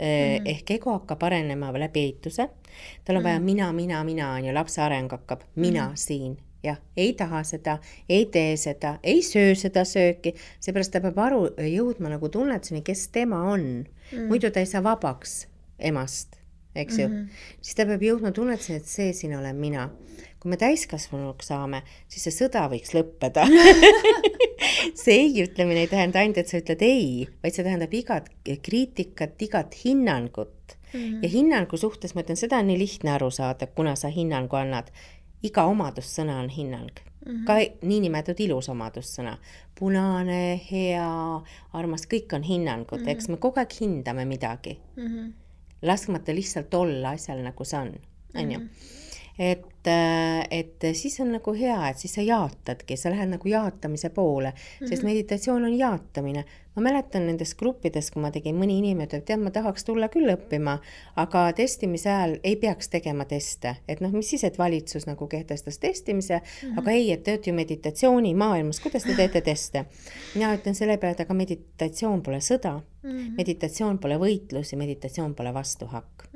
Ehk ego hakkab arenema läbi eituse. Tal on vaja mina, on ju, lapse areng hakkab mina siin. Ja, ei taha seda, ei tee seda, ei söö seda sööki, seepärast ta peab jõudma nagu tunnetuseni, kes tema on. Muidu ta ei saa vabaks emast, eks ju. Siis ta peab jõudma tunnetuseni, et see siin olen mina. Kui me täiskasvanuks saame, siis see sõda võiks lõppeda. See ei ütlemine ei tähenda ainult, et sa ütled ei, vaid see tähendab igat kriitikat, igat hinnangut. Ja hinnangu suhtes, ma ütlen, seda on nii lihtne aru saada, kuna sa hinnangu annad. Iga omadussõna on hinnang. Ka niinimetatud ilus omadussõna. Punane, hea, armas, kõik on hinnangud. Eks me kogu aeg hindame midagi. Laskmata lihtsalt olla asjal nagu see on. Et siis on nagu hea, et siis sa jaatadki, sa lähed nagu jaatamise poole, sest meditatsioon on jaatamine. Ma mäletan nendes gruppides, kui ma tegin mõni inimene, et ma tahaks tulla küll õppima, aga testimise ajal ei peaks tegema teste. Et mis siis, et valitsus nagu kehtestas testimise, aga ei, et te olete ju meditatsiooni maailmas, kuidas te teete teste? Mina ütlen selle peale, et aga meditatsioon pole sõda, meditatsioon pole võitlus ja meditatsioon pole vastuhakk.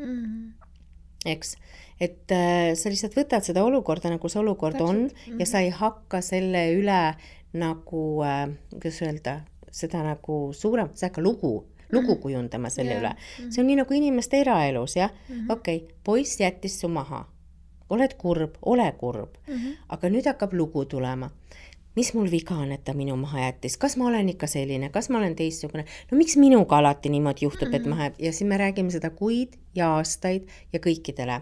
Eks, et sa lihtsalt võtad seda olukorda, nagu see olukord on ja sa ei hakka selle üle nagu, kuidas öelda, seda nagu suurem, sa hakka lugu kujundama selle üle. See on nii nagu inimeste eraelus, jah? Okei, poiss jättis su maha. Oled kurb, ole kurb. Aga nüüd hakkab lugu tulema. mis mul viga on, et ta minu maha jättis, kas ma olen ikka selline, kas ma olen teistsugune, no miks minuga alati niimoodi juhtub, et maha jääb ja siis me räägime seda kuid ja aastaid ja kõikidele.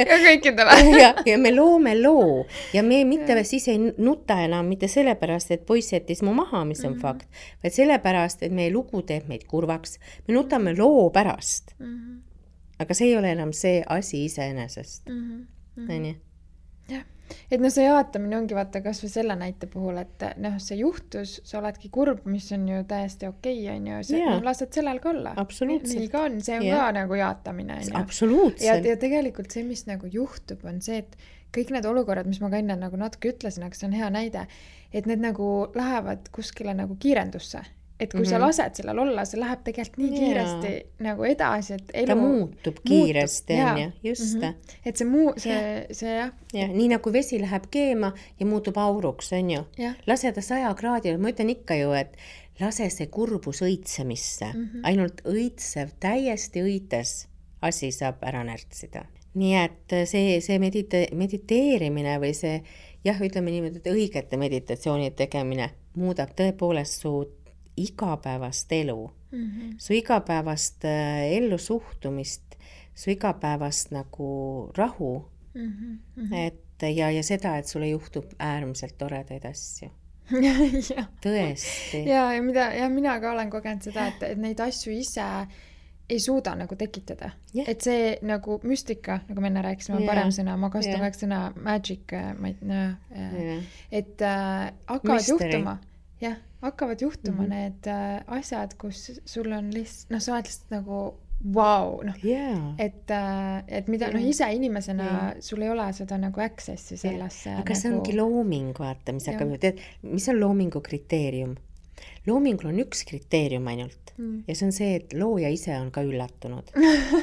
ja kõikidele. ja me loome loo ja me mitte siis ei nuta enam mitte sellepärast, et poiss jättis mu maha, mis on fakt, vaid sellepärast, et meie lugu teeb meid kurvaks. Me nutame loo pärast. Aga see ei ole enam see asi iseenesest. Nii? Jah. Et no see jaatamine ongi vaata kas või selle näite puhul, et noh, see juhtus, sa oledki kurb, mis on ju täiesti okei, on ju, no, lased sellel ka olla. Nii ka on, see on ka nagu jaatamine. Absoluutselt. Ja tegelikult see, mis nagu juhtub, on see, et kõik need olukorrad, mis ma ka enne nagu natuke ütlesin, aga see on hea näide, et need nagu lähevad kuskile nagu kiirendusse. Et kui sa lased sellel olla, see läheb tegelikult nii kiiresti nagu edasi, et elu ta muutub kiiresti, on ju, just. Et see jah. Ja, nii nagu vesi läheb keema ja muutub auruks, on ju. Lase ta 100 kraadil, ma ütlen ikka ju, et lase see kurbus õitsemisse. Ainult õitsev, täiesti õites asi saab ära närtsida. Nii et see mediteerimine või see, jah, ütleme niimoodi, et õigete meditatsioonide tegemine muudab tõepoolest su igapäevast elu, su igapäevast ellu suhtumist, su igapäevast nagu rahu, et ja seda, et sulle juhtub äärmiselt toredaid asju. Tõesti. Ja mina ka olen kogenud seda, et neid asju ise ei suuda nagu tekitada. Et see nagu müstika, nagu me enne rääkisime, on parem sõna, ma kasutan kõik sõna magic, et hakkavad juhtuma. Jah, hakkavad juhtuma need asjad, kus sul on lihtsalt, noh, sa oled lihtsalt nagu vau, noh, et mida, noh, ise inimesena sul ei ole seda nagu accessi sellesse. Aga see ongi looming, vaata, mis hakkab, tead, mis on loomingu kriteerium? Loomingul on üks kriteerium ainult ja see on see, et looja ise on ka üllatunud.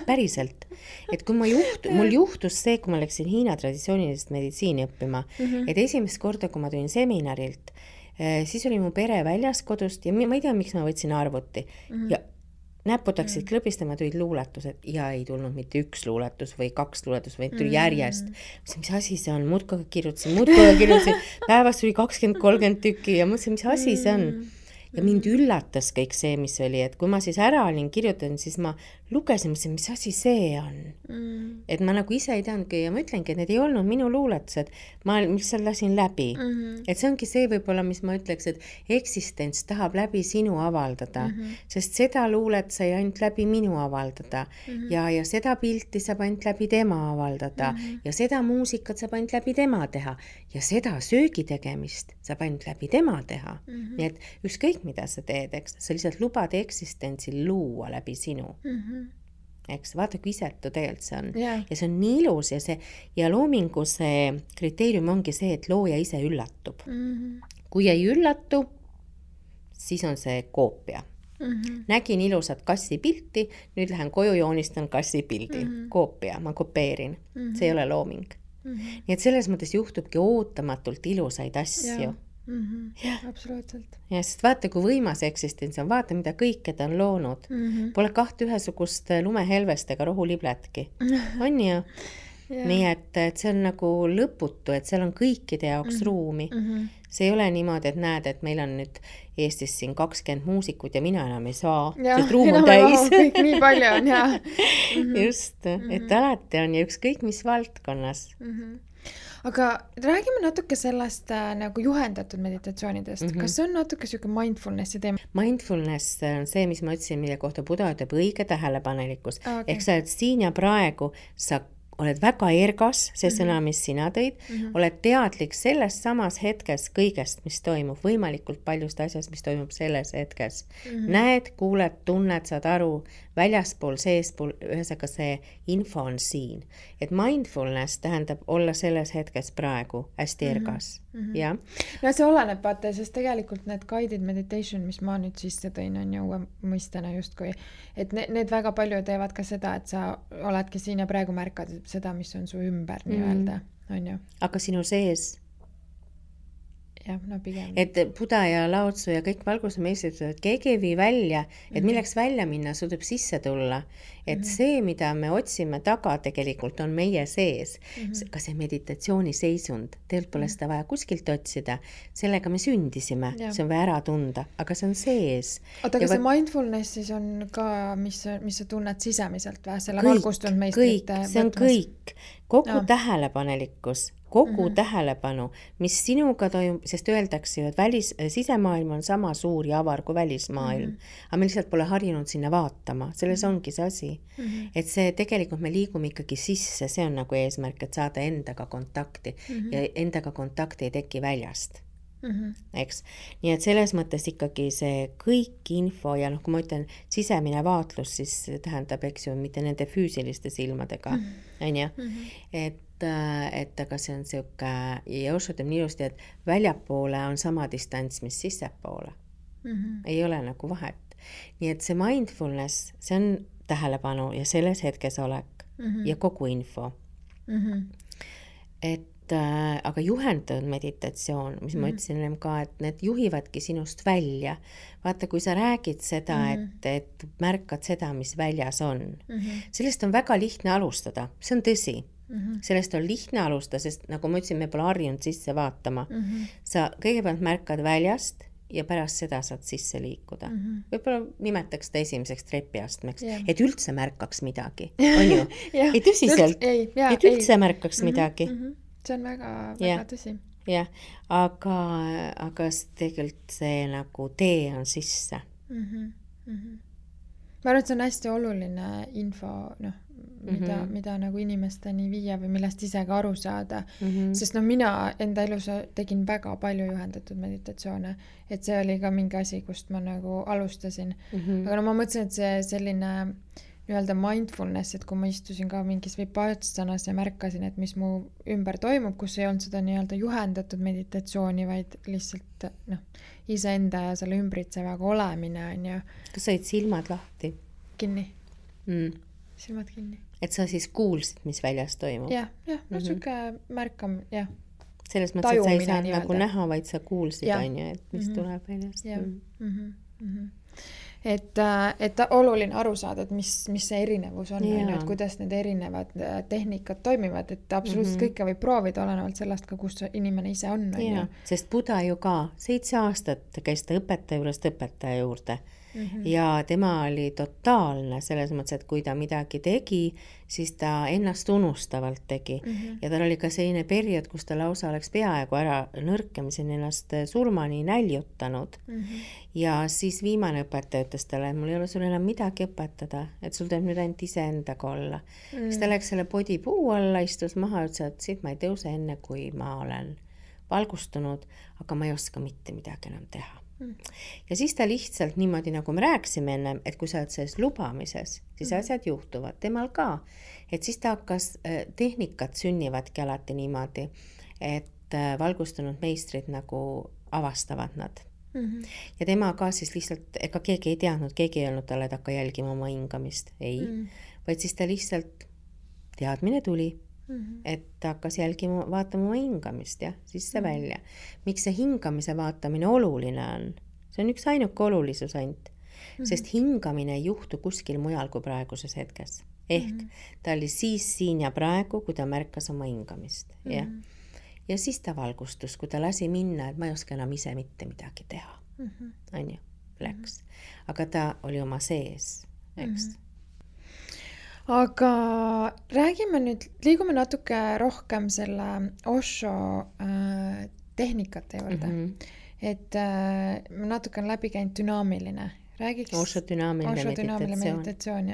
Päriselt. Et kui mul juhtus see, kui ma läksin Hiina traditsioonilist meditsiini õppima, et esimest korda, kui ma tulin seminarilt, siis oli mu pere väljas kodust ja ma ei tea, miks ma võtsin arvuti ja näputaksid klõbistama, tulid luuletused ja ei tulnud mitte üks luuletus või 2 luuletus, vaid tuli järjest. Mis asi see on? Muudkoga kirjutasin. Päevast tuli 20-30 tükki ja mõtlesin, mis asi see on? Ja mind üllatas kõik see, mis oli, et kui ma siis ära olin kirjutanud, siis ma lugesin, mis asi see on. Et ma nagu ise ei teadnudki ja ma ütlengi, et need ei olnud minu luuletused, ma lihtsalt lasin läbi. Et see ongi see võib-olla, mis ma ütleks, et eksistents tahab läbi sinu avaldada, sest seda luulet sai ainult läbi minu avaldada ja seda pilti saab ainult läbi tema avaldada ja seda muusikat saab ainult läbi tema teha ja seda söögi tegemist saab ainult läbi tema teha. Nii et ükskõik mida sa teed, eks, sa lihtsalt lubad eksistentsil luua läbi sinu. Eks, vaata kui isetu tegelikult see on. Ja see on nii ilus ja loomingu see kriteerium ongi see, et looja ise üllatub. Kui ei üllatu, siis on see koopia. Nägin ilusat kassi pilti, nüüd lähen koju joonistan kassi pildi. Koopia, ma kopeerin. See ei ole looming. Nii et selles mõttes juhtubki ootamatult ilusaid asju. Absoluutselt. Ja sest vaata, kui võimas eksistents on, vaata, mida kõike ta on loonud. Pole 2 ühesugust lumehelvestega rohulibletki. On ju? Nii et see on nagu lõputu, et seal on kõikide jaoks ruumi. See ei ole niimoodi, et näed, et meil on nüüd Eestis siin 20 muusikut ja mina enam ei saa. See ruum on täis. Kõik nii palju on, jah. Just, et alati on ja ükskõik mis valdkonnas. Aga räägime natuke sellest nagu juhendatud meditatsioonidest. Kas see on natuke selline mindfulnessi teema? Mindfulness on see, mis ma ütlesin, mille kohta Buda ütleb õige tähelepanelikkus. Ehk sa oled siin ja praegu, sa oled väga ergas, see sõna, mis sina tõid, oled teadlik selles samas hetkes kõigest, mis toimub, võimalikult paljust asjast, mis toimub selles hetkes. Näed, kuuled, tunned, saad aru, väljaspool, seespool, ühesõnaga see info on siin. Et mindfulness tähendab olla selles hetkes praegu hästi ergas. Ja? No see oleneb, vaata, sest tegelikult need guided meditation, mis ma nüüd sisse tõin, on ju uue mõistena justkui, et need väga palju teevad ka seda, et sa oledki siin ja praegu märkad seda, mis on su ümber nii-öelda, on ju. Aga sinu sees? jah, no pigem. Et Buda ja Lao-Tzu ja kõik valgusmeistrid, et keegi ei vii välja, et milleks välja minna, sul tuleb sisse tulla. Et see, mida me otsime taga, tegelikult on meie sees. Ka see meditatsiooniseisund, tegelikult pole seda vaja kuskilt otsida, sellega me sündisime, see on vaja ära tunda, aga see on sees. Oota, aga see mindfulness siis on ka, mis sa tunned sisemiselt või selle valgustunud meistrite võtmes? See on kõik, kogu tähelepanelikkus, kogu tähelepanu, mis sinuga toimub, sest öeldakse ju, et sisemaailm on sama suur ja avar kui välismaailm, aga me lihtsalt pole harjunud sinna vaatama, selles ongi see asi. Et see tegelikult me liigume ikkagi sisse, see on nagu eesmärk, et saada endaga kontakti ja endaga kontakti ei teki väljast. Eks? Nii et selles mõttes ikkagi see kõik info ja kui ma ütlen sisemine vaatlus, siis tähendab, eks ju, mitte nende füüsiliste silmadega, on ju? Et aga see on siuke, ja Osho teeb nii ilusti, et väljapoole on sama distants, mis sissepoole. Ei ole nagu vahet. Nii et see mindfulness, see on tähelepanu ja selles hetkes olek ja kogu info. Aga juhendatud meditatsioon, mis ma ütlesin ka, et need juhivadki sinust välja. Vaata, kui sa räägid seda, et märkad seda, mis väljas on. Sellest on väga lihtne alustada, see on tõsi. Sellest on lihtne alustada, sest nagu ma ütlesin, me pole harjunud sisse vaatama. Sa kõigepealt märkad väljast ja pärast seda saad sisse liikuda. Võib-olla nimetaks seda esimeseks trepiastmeks, et üldse märkaks midagi, on ju? Ei tõsiselt, et üldse märkaks midagi. See on väga, väga tõsi. Jah, aga tegelikult see nagu tee on sisse. Ma arvan, et see on hästi oluline info, mida nagu inimesteni viia või millest ise ka aru saada. Sest mina enda elus tegin väga palju juhendatud meditatsioone, et see oli ka mingi asi, kust ma nagu alustasin. Aga ma mõtlesin, et see selline nii-öelda mindfulness, et kui ma istusin ka mingis vipassanas ja märkasin, et mis mu ümber toimub, kus ei olnud seda nii-öelda juhendatud meditatsiooni, vaid lihtsalt iseenda ja selle ümbritsevaga olemine on ju. Kas said silmad lahti? Kinni. Silmad kinni. Et sa siis kuulsid, mis väljas toimub? Jah, siuke märkam, jah. Selles mõttes, et sa ei saanud nagu näha, vaid sa kuulsid, on ju, et mis tuleb väljast. Et oluline aru saada, et mis see erinevus on, et kuidas need erinevad tehnikad toimivad, et absoluutselt kõike võib proovida olenevalt sellest ka, kus inimene ise on. Sest Buda ju ka 7 aastat käis ta õpetaja juurde ja tema oli totaalne selles mõttes, et kui ta midagi tegi, siis ta ennast unustavalt tegi ja tal oli ka selline periood, kus ta lausa oleks peaaegu ära nõrkemisen ennast surmani näljutanud ja siis viimane õpetaja ütles talle, et mul ei ole sul enam midagi õpetada, et sul tuleb nüüd ainult iseendaga olla. Siis ta läks selle podipuu alla, istus maha ja ütles, et siit ma ei tõuse enne, kui ma olen valgustunud, aga ma ei oska mitte midagi enam teha. Ja siis ta lihtsalt niimoodi, nagu me rääkisime ennem, et kui sa oled selles lubamises, siis asjad juhtuvad temal ka. Et siis ta hakkas, tehnikat sünnivadki alati niimoodi, et valgustunud meistrid nagu avastavad nad. Ja tema ka siis lihtsalt, ega keegi ei teadnud, keegi ei olnud talle, et hakka jälgima oma hingamist. Ei, vaid siis ta lihtsalt teadmine tuli. Et ta hakkas jälgima, vaatama oma hingamist ja sisse välja. Miks see hingamise vaatamine oluline on? See on üks ainuke olulisus ainult, sest hingamine ei juhtu kuskil mujal kui praeguses hetkes. Ehk ta oli siis siin ja praegu, kui ta märkas oma hingamist. Ja siis ta valgustus, kui ta lasi minna, et ma ei oska enam ise mitte midagi teha. On ju, läks. Aga ta oli oma sees, eks. Aga räägime nüüd, liigume natuke rohkem selle Osho tehnikate juurde. Et ma natuke on läbi käinud dünaamiline. Räägiks Osho dünaamiline meditatsioon.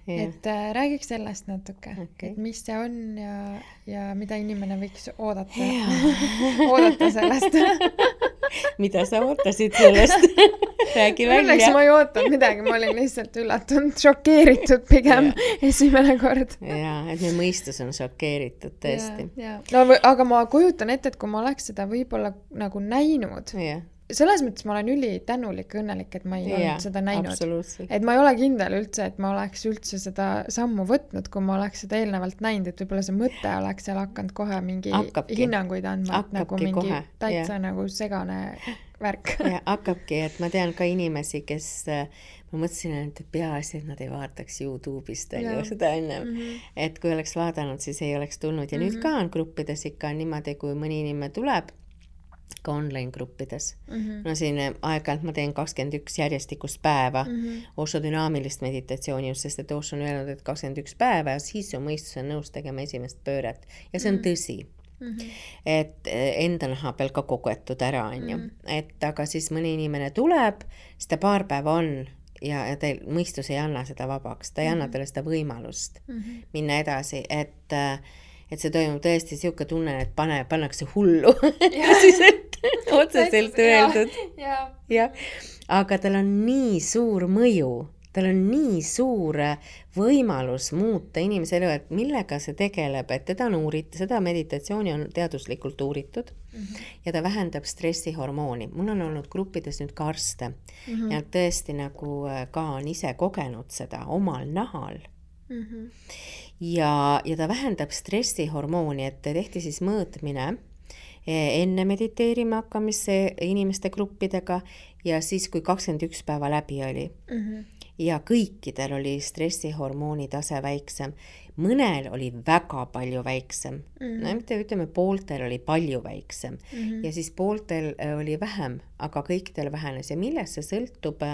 Et räägiks sellest natuke, et mis see on ja mida inimene võiks oodata sellest. Mida sa ootasid sellest? Räägi välja. Õnneks ma ei ootanud midagi, ma olin lihtsalt üllatunud, šokeeritud pigem esimene kord. Jaa, et meie mõistus on šokeeritud tõesti. No, aga ma kujutan ette, et kui ma oleks seda võib-olla nagu näinud, selles mõttes ma olen ülitänulik ja õnnelik, et ma ei olnud seda näinud. Et ma ei ole kindel üldse, et ma oleks üldse seda sammu võtnud, kui ma oleks seda eelnevalt näinud, et võib-olla see mõte oleks seal hakanud kohe mingi hinnanguid andma, nagu mingi kohe. Täitsa nagu segane värk. Ja hakkabki, et ma tean ka inimesi, kes ma mõtlesin, et peaasi, et nad ei vaataks YouTube'ist seda ennem. Et kui oleks vaadanud, siis ei oleks tulnud. Ja nüüd ka on gruppides ikka niimoodi, kui mõni inimene tuleb, ka online gruppides. No siin aeg-ajalt ma teen 21 järjestikust päeva Osho dünaamilist meditatsiooni, just sest, et Osho on öelnud, et 21 päeva ja siis su mõistus on nõus tegema esimest pööret. Ja see on tõsi. Et enda naha peal ka kogetud ära, on ju. Et aga siis mõni inimene tuleb, seda paar päeva on ja teil mõistus ei anna seda vabaks, ta ei anna teile seda võimalust minna edasi, et see toimub tõesti siuke tunne, et pannakse hullu otseselt öeldud. Ja. Aga tal on nii suur mõju, tal on nii suur võimalus muuta inimese elu, et millega see tegeleb, et teda on uuritud, seda meditatsiooni on teaduslikult uuritud ja ta vähendab stressihormooni. Mul on olnud gruppides nüüd ka arste ja tõesti nagu ka on ise kogenud seda omal nahal. Ja ta vähendab stressihormooni, et tehti siis mõõtmine enne mediteerima hakkamisse inimeste gruppidega ja siis, kui 21 päeva läbi oli. Ja kõikidel oli stressihormooni tase väiksem. Mõnel oli väga palju väiksem. No, ütleme, pooltel oli palju väiksem. Ja siis pooltel oli vähem, aga kõikidel vähenes. Ja millest see sõltub,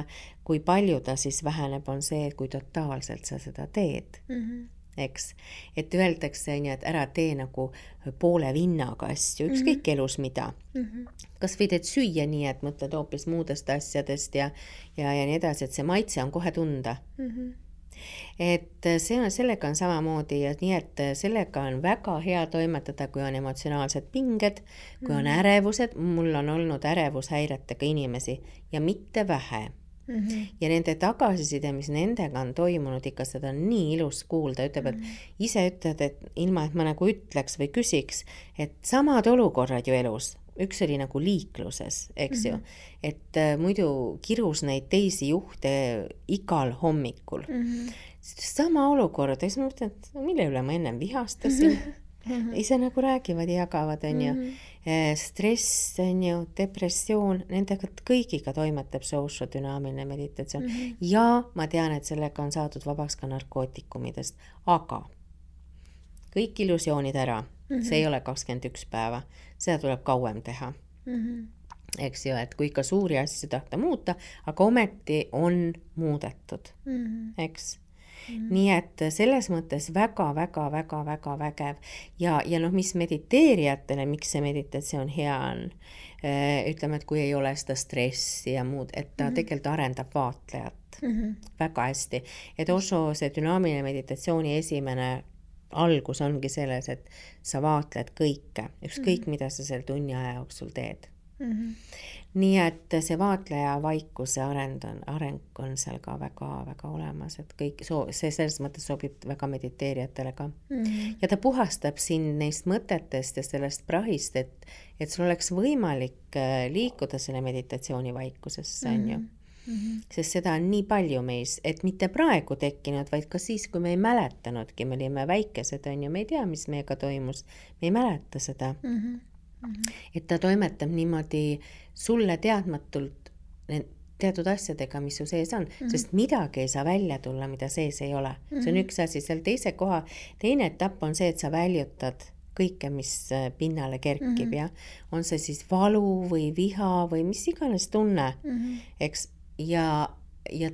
kui palju ta siis väheneb, on see, kui totaalselt sa seda teed. Eks? Et öeldakse, et ära tee nagu poole vinnaga asju, ükskõik elus mida. Kas või teed süüa nii, et mõtled hoopis muudest asjadest ja nii edasi, et see maitse on kohe tunda. Et sellega on samamoodi ja nii, et sellega on väga hea toimetada, kui on emotsionaalsed pinged, kui on ärevused. Mul on olnud ärevushäiretega inimesi ja mitte vähe. Ja nende tagasiside, mis nendega on toimunud, ikka seda on nii ilus kuulda, ütleb, et ise ütled, et ilma, et ma nagu ütleks või küsiks, et samad olukorrad ju elus, üks oli nagu liikluses, eks ju, et muidu kirus neid teisi juhte igal hommikul. Sama olukord, ja siis ma mõtlen, et mille üle ma ennem vihastasin, ise nagu räägivad ja jagavad, on ju. Stress, on ju, depressioon, nendega kõigiga toimetab see Osho dünaamiline meditatsioon. Ja ma tean, et sellega on saadud vabaks ka narkootikumidest, aga kõik illusioonid ära, see ei ole 21 päeva, seda tuleb kauem teha. Eks ju, et kui ikka suuri asju tahta muuta, aga ometi on muudetud, eks. Nii et selles mõttes väga vägev ja noh, mis mediteerijatele, miks see meditatsioon hea on, ütleme, et kui ei ole seda stressi ja muud, et ta tegelikult arendab vaatlejat väga hästi, et Osho see dünaamiline meditatsiooni esimene algus ongi selles, et sa vaatled kõike, ükskõik mida sa selle tunni aja jooksul teed. Nii et see vaatleja vaikuse areng on seal ka väga olemas, et kõik see selles mõttes sobib väga mediteerijatele ka. Ja ta puhastab sind neist mõtetest ja sellest prahist, et sul oleks võimalik liikuda selle meditatsiooni vaikusesse, on ju. Sest seda on nii palju meis, et mitte praegu tekkinud, vaid ka siis, kui me ei mäletanudki, me olime väikesed, on ju, me ei tea, mis meiega toimus, me ei mäleta seda. Et ta toimetab niimoodi sulle teadmatult teatud asjadega, mis su sees on, sest midagi ei saa välja tulla, mida sees ei ole. See on üks asi, seal teine etapp on see, et sa väljutad kõike, mis pinnale kerkib, ja on see siis valu või viha või mis iganes tunne, eks, ja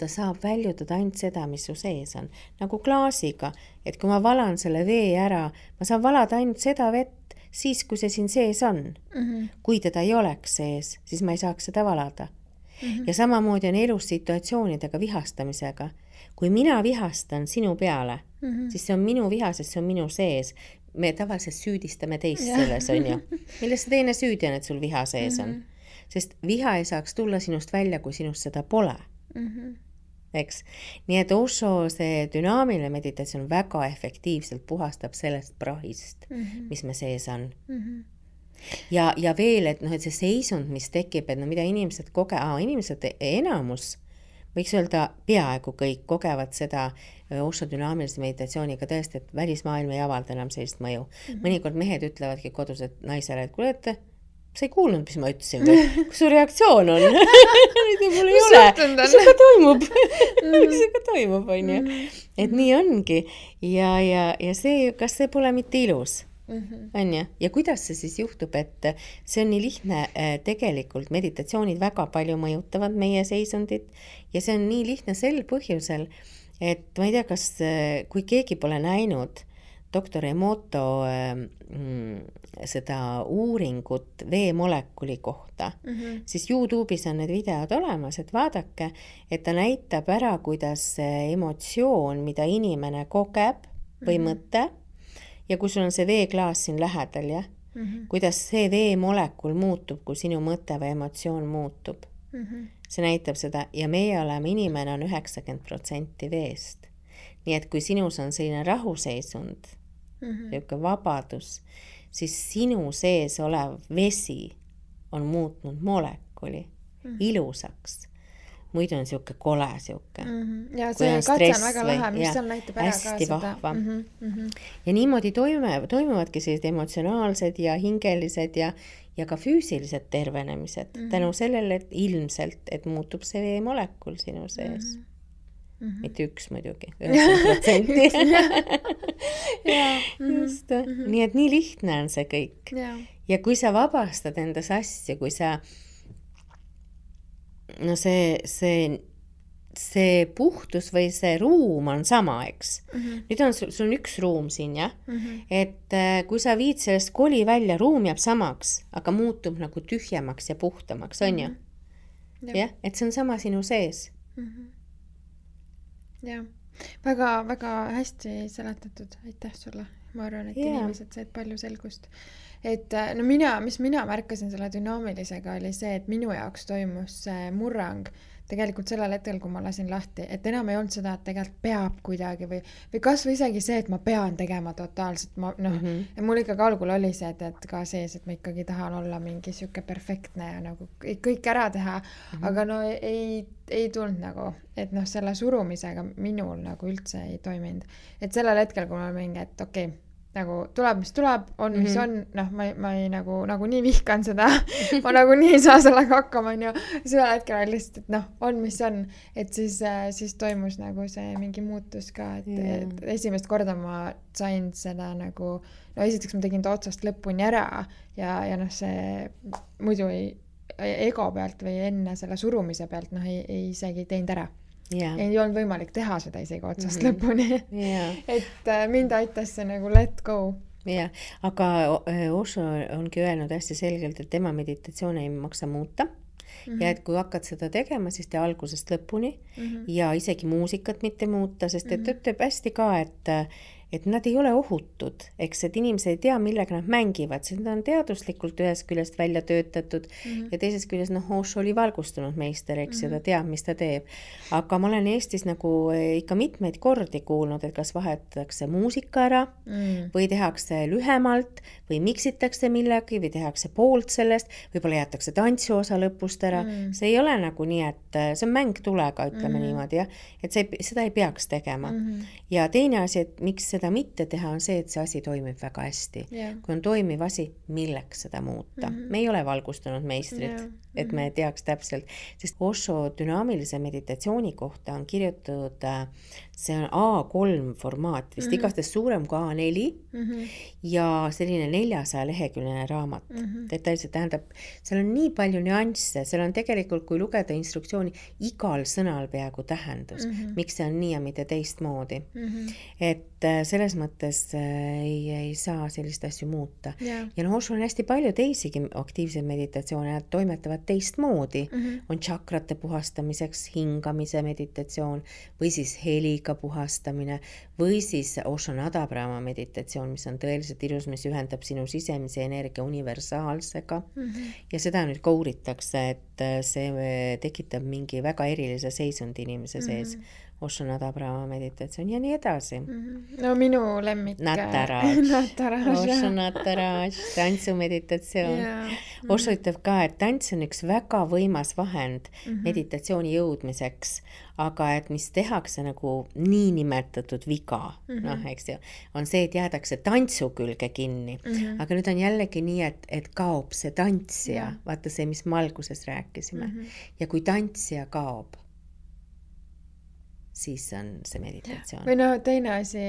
ta saab väljutada ainult seda, mis su sees on. Nagu klaasiga, et kui ma valan selle vee ära, ma saan valada ainult seda vett, siis, kui see siin sees on. Kui teda ei oleks sees, siis ma ei saaks seda valada. Ja samamoodi on elus situatsioonidega vihastamisega. Kui mina vihastan sinu peale, siis see on minu viha, sest see on minu sees. Me tavaliselt süüdistame teist selles, on ju. Milles see teine süüdi on, et sul viha sees on? Sest viha ei saaks tulla sinust välja, kui sinust seda pole. Eks? Nii et Osho see dünaamiline meditatsioon väga efektiivselt puhastab sellest prahist, mis me sees on. ja veel, et noh, et see seisund, mis tekib, et no mida inimesed inimesed enamus, võiks öelda peaaegu kõik kogevad seda Osho dünaamilise meditatsiooniga tõesti, et välismaailm ei avalda enam sellist mõju. Mõnikord mehed ütlevadki kodus, et naisele, et kuule, et sa ei kuulnud, mis ma ütlesin või? Kus su reaktsioon on? Mul ei ole. Mis sinuga toimub? Mis sinuga toimub, on ju? Et nii ongi. Ja see, kas see pole mitte ilus? On ju? Ja kuidas see siis juhtub, et see on nii lihtne, tegelikult meditatsioonid väga palju mõjutavad meie seisundit ja see on nii lihtne sel põhjusel, et ma ei tea, kas, kui keegi pole näinud doktor Emoto seda uuringut veemolekuli kohta, siis YouTube'is on need videod olemas, et vaadake, et ta näitab ära, kuidas emotsioon, mida inimene kogeb või mõte, ja kui sul on see veeklaas siin lähedal, jah, kuidas see veemolekul muutub, kui sinu mõte või emotsioon muutub. See näitab seda ja meie oleme, inimene on 90% veest. Nii et kui sinus on selline rahuseisund, niisugune vabadus, siis sinu sees olev vesi on muutnud molekuli ilusaks. Muidu on niisugune kole niisugune. Ja see katse on väga lahe, mis seal näitab ära ka seda. Vahva. Ja niimoodi toimuvadki sellised emotsionaalsed ja hingelised ja ka füüsilised tervenemised. Tänu sellele, et ilmselt, et muutub see veemolekul sinu sees. Mitte üks muidugi, 90%. Just. Nii et nii lihtne on see kõik. Ja kui sa vabastad endas asju, kui sa no see puhtus või see ruum on sama, eks. Nüüd on sul on üks ruum siin, jah? Et kui sa viid sellest koli välja, ruum jääb samaks, aga muutub nagu tühjemaks ja puhtamaks, on ju? Jah, et see on sama sinu sees. Jah, väga hästi seletatud, aitäh sulle. Ma arvan, et inimesed said palju selgust. Et no mis mina märkasin selle dünaamilisega oli see, et minu jaoks toimus see murrang tegelikult sellel hetkel, kui ma lasin lahti, et enam ei olnud seda, et tegelikult peab kuidagi või kas või isegi see, et ma pean tegema totaalselt, mul ikkagi algul oli see, et ka sees, et ma ikkagi tahan olla mingi siuke perfektne ja nagu kõik ära teha, aga no ei tulnud nagu, et noh, selle surumisega minul nagu üldse ei toiminud. Et sellel hetkel, kui ma mingi, et okei, nagu tuleb, mis tuleb, on, mis on, noh, ma ei nagu nii vihkan seda, ma nagu nii ei saa sellega hakkama, on ju, sellel hetkel oli lihtsalt, et noh, on, mis on, et siis toimus nagu see mingi muutus ka, et esimest korda ma sain seda nagu, no esiteks ma tegin ta otsast lõpuni ära ja noh, see muidu ego pealt või enne selle surumise pealt, noh, ei isegi teinud ära. Ei olnud võimalik teha seda isegi otsast lõpuni. Et mind aitas see nagu let go. Aga Osho ongi öelnud hästi selgelt, et tema meditatsioon ei maksa muuta. Ja et kui hakkad seda tegema, siis tee algusest lõpuni ja isegi muusikat mitte muuta, sest et ütleb hästi ka, et nad ei ole ohutud, eks, et inimesed ei tea, millega nad mängivad, sest nad on teaduslikult ühest küljest välja töötatud ja teisest küljest, noh, Osho oli valgustunud meister, eks, ja ta teab, mis ta teeb. Aga ma olen Eestis nagu ikka mitmeid kordi kuulnud, et kas vahetatakse muusika ära või tehakse lühemalt või miksitakse millegi või tehakse poolt sellest, võib-olla jätakse tantsuosa lõpust ära. See ei ole nagu nii, et see on mäng tulega, ütleme niimoodi, jah, et seda ei peaks tegema. Ja teine asi, et miks seda mitte teha, on see, et see asi toimib väga hästi. Kui on toimiv asi, milleks seda muuta. Me ei ole valgustunud meistrid, et me teaks täpselt, sest Osho dünaamilise meditatsiooni kohta on kirjutatud, see on A3 formaat, vist igastahes suurem kui A4 ja selline 400 leheküljeline raamat. Detailselt tähendab, seal on nii palju nüansse, seal on tegelikult, kui lugeda instruktsiooni, igal sõnal peaaegu tähendus, miks see on nii ja mitte teistmoodi. Et selles mõttes ei saa sellist asju muuta. Ja noh, Osho on hästi palju teisigi aktiivseid meditatsioone, nad toimetavad teistmoodi. On tšakrate puhastamiseks hingamise meditatsioon või siis heliga puhastamine või siis Osho Nadabrahma meditatsioon, mis on tõeliselt ilus, mis ühendab sinu sisemise energia universaalsega. Ja seda nüüd ka uuritakse, see tekitab mingi väga erilise seisundi inimese sees. Osho Nada Brahma meditatsioon ja nii edasi. No minu lemmik. Nataraj. Osho Nataraj, tantsumeditatsioon. Osho ütleb ka, et tants on üks väga võimas vahend meditatsiooni jõudmiseks, aga et mis tehakse nagu niinimetatud viga, noh, eks ju, on see, et jäädakse tantsu külge kinni. Aga nüüd on jällegi nii, et kaob see tantsija, vaata see, mis me alguses rääkisime. Ja kui tantsija kaob, siis on see meditatsioon. Või no teine asi,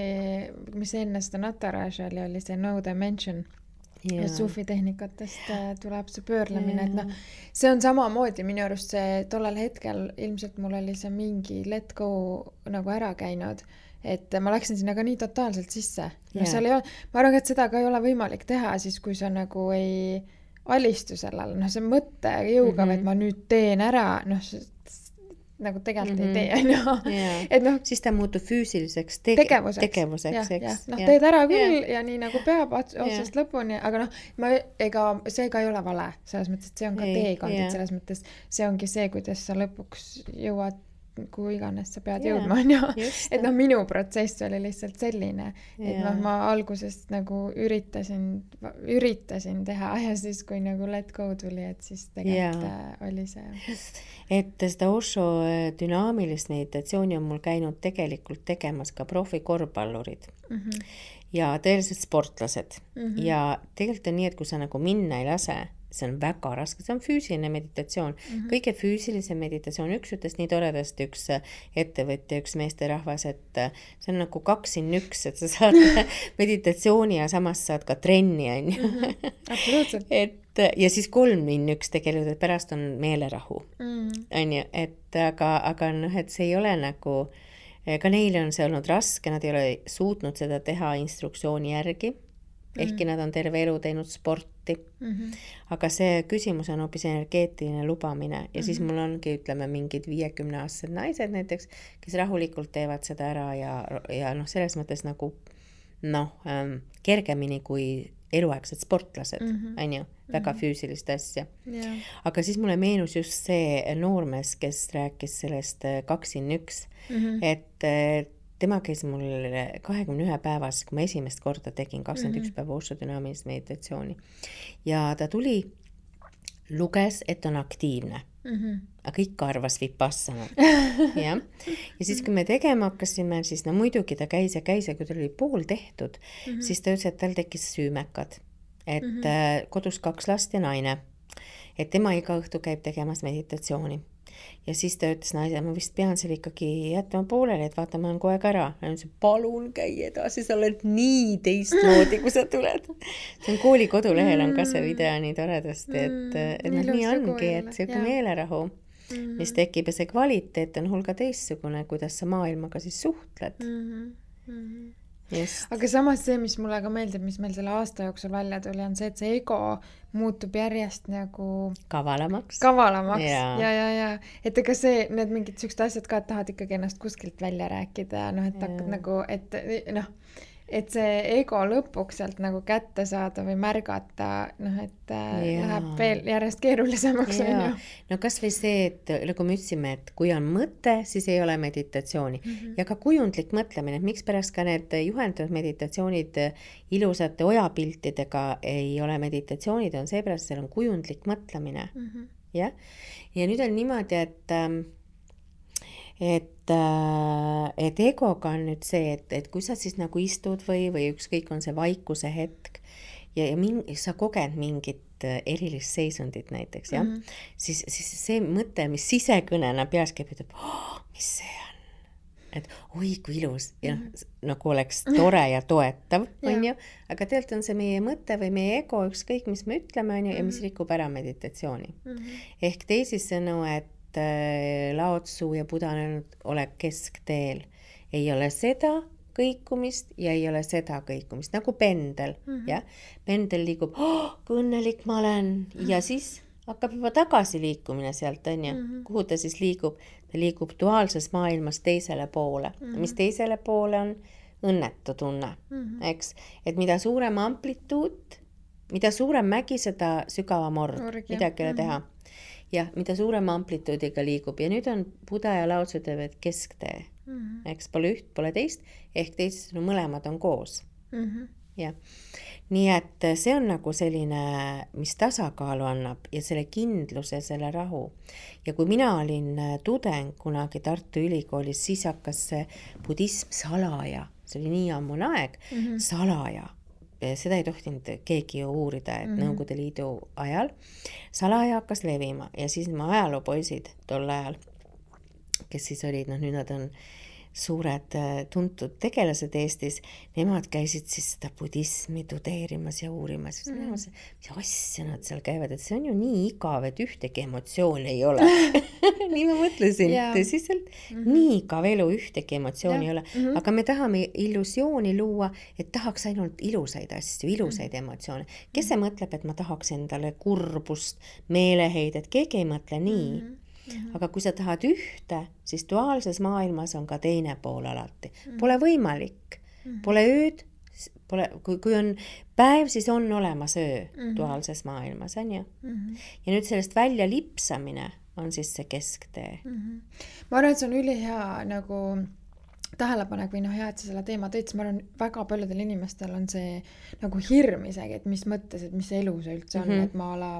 mis enne seda Nataraja oli see no dimension. Sufi tehnikatest tuleb see pöörlemine, et noh, see on samamoodi minu arust see tollel hetkel, ilmselt mul oli see mingi let go nagu ära käinud, et ma läksin sinna ka nii totaalselt sisse. No, seal ei ole, ma arvan, et seda ka ei ole võimalik teha siis, kui sa nagu ei alistu sellele, noh see mõtte jõuga, et ma nüüd teen ära, noh nagu tegelikult ei tee, et noh, siis ta muutub füüsiliseks tegevuseks, eks. Noh, teed ära küll ja nii nagu peab otsast lõpuni, aga noh, see ka ei ole vale, selles mõttes, et see on ka teekond, et selles mõttes see ongi see, kuidas sa lõpuks jõuad, kuhu iganes sa pead jõudma, et noh, minu protsess oli lihtsalt selline, et noh, ma algusest nagu üritasin teha ja siis, kui nagu let go tuli, et siis tegelikult oli see. Et seda Osho dünaamilist meditatsiooni on mul käinud tegelikult tegemas ka profikorvpallurid ja tõeliselt sportlased ja tegelikult on nii, et kui sa nagu minna ei lase, see on väga raske, see on füüsiline meditatsioon. Kõige füüsilise meditatsioon, üks ütles nii toredasti, üks ettevõtja, üks meesterahvas, et see on nagu 2-1, et sa saad meditatsiooni ja samas saad ka trenni. Absoluutselt. Ja siis 3-1 tegelikult, et pärast on meelerahu. Aga noh, et see ei ole nagu, ka neile on see olnud raske, nad ei ole suutnud seda teha instruktsiooni järgi. Ehkki nad on terve elu teinud sporti. Aga see küsimus on hoopis energeetiline lubamine ja siis mul ongi, ütleme, mingid 50-aastased naised näiteks, kes rahulikult teevad seda ära ja noh, selles mõttes nagu kergemini kui eluaegsed sportlased, on ju, väga füüsilist asja. Aga siis mulle meenus just see noormees, kes rääkis sellest 2-1, et tema käis mul 21 päevas, kui ma esimest korda tegin 21 päeva Osho dünaamilist meditatsiooni. Ja ta tuli, luges, et on aktiivne. Aga ikka arvas vipassana. Ja siis, kui me tegema hakkasime, siis no muidugi ta käis ja kui ta oli pool tehtud, siis ta ütles, et tal tekkis süümekad. Et kodus 2 last ja naine. Et tema iga õhtu käib tegemas meditatsiooni. Ja siis ta ütles naise, ma vist pean seal ikkagi jätma pooleli, et vaata, ma olen kogu aeg ära. Ja ütles, palun käi edasi, sa oled nii teistmoodi, kui sa tuled. See on kooli kodulehel on ka see video nii toredasti, et nii ongi, et see meelerahu, mis tekib ja see kvaliteet on hulga teistsugune, kuidas sa maailmaga siis suhtled. Just. Aga samas see, mis mulle ka meeldib, mis meil selle aasta jooksul välja tuli, on see, et see ego muutub järjest nagu kavalamaks. Ja. Et ega see, need mingid sellised asjad ka, et tahad ikkagi ennast kuskilt välja rääkida, noh, et hakkad nagu, et see ego lõpuks sealt nagu kätte saada või märgata, noh, et läheb veel järjest keerulisemaks. No kas või see, et nagu me ütlesime, et kui on mõte, siis ei ole meditatsiooni. Ja ka kujundlik mõtlemine, et miks pärast ka need juhendatud meditatsioonid ilusate ojapiltidega ei ole meditatsioonid, on seepärast, seal on kujundlik mõtlemine. Ja nüüd on niimoodi, et egoga on nüüd see, et kui sa siis nagu istud või ükskõik on see vaikuse hetk ja sa koged mingit erilist seisundit näiteks, siis see mõte, mis sisekõnena peas käib, ütleb, mis see on? Et oi, kui ilus ja nagu oleks tore ja toetav, on ju, aga tegelikult on see meie mõte või meie ego, ükskõik mis me ütleme, on ju, ja mis rikub ära meditatsiooni. Ehk teisisõnu, et Lao Tzu ja Buddha on öelnud, ole keskteel. Ei ole seda kõikumist ja ei ole seda kõikumist, nagu pendel. Ja? Pendel liigub, kui õnnelik ma olen, ja siis hakkab juba tagasi liikumine sealt, on ju. Kuhu ta siis liigub? Ta liigub duaalses maailmas teisele poole. Mis teisele poole on? Õnnetu tunne. Eks? Et mida suurem amplituud, mida suurem mägi, seda sügavam org, midagi ei ole teha. jah, mida suurema amplituudiga liigub ja nüüd on Buda ja Lao Tzu teevad kesktee. Eks pole üht, pole teist, ehk teised mõlemad on koos. Jah. Nii et see on nagu selline, mis tasakaalu annab ja selle kindluse, selle rahu. Ja kui mina olin tudeng kunagi Tartu Ülikoolis, siis hakkas see budism salaja, see oli nii ammune aeg, salaja. Seda ei tohtinud keegi ju uurida, et Nõukogude Liidu ajal salaja hakkas levima ja siis ma ajaloopoisid tol ajal, kes siis olid, nüüd nad on suured tuntud tegelased Eestis, nemad käisid siis seda budismi tudeerimas ja uurimas. Mis asja nad seal käivad, et see on ju nii igav, et ühtegi emotsiooni ei ole. Nii ma mõtlesin, tõsiselt, nii igav elu, ühtegi emotsiooni ei ole. Aga me tahame illusiooni luua, et tahaks ainult ilusaid asju, ilusaid emotsioone. Kes see mõtleb, et ma tahaks endale kurbust, meeleheidet, keegi ei mõtle nii. Aga kui sa tahad ühte, siis duaalses maailmas on ka teine pool alati. Pole võimalik, pole ööd, kui on päev, siis on olemas öö duaalses maailmas, on ju? Ja nüüd sellest välja lipsamine on siis see kesktee. Ma arvan, et see on ülihea nagu tähelepanek või hea, et sa selle teema tõid, ma arvan, väga paljudel inimestel on see nagu hirm isegi, et mis mõttes, et mis elu see üldse on, et ma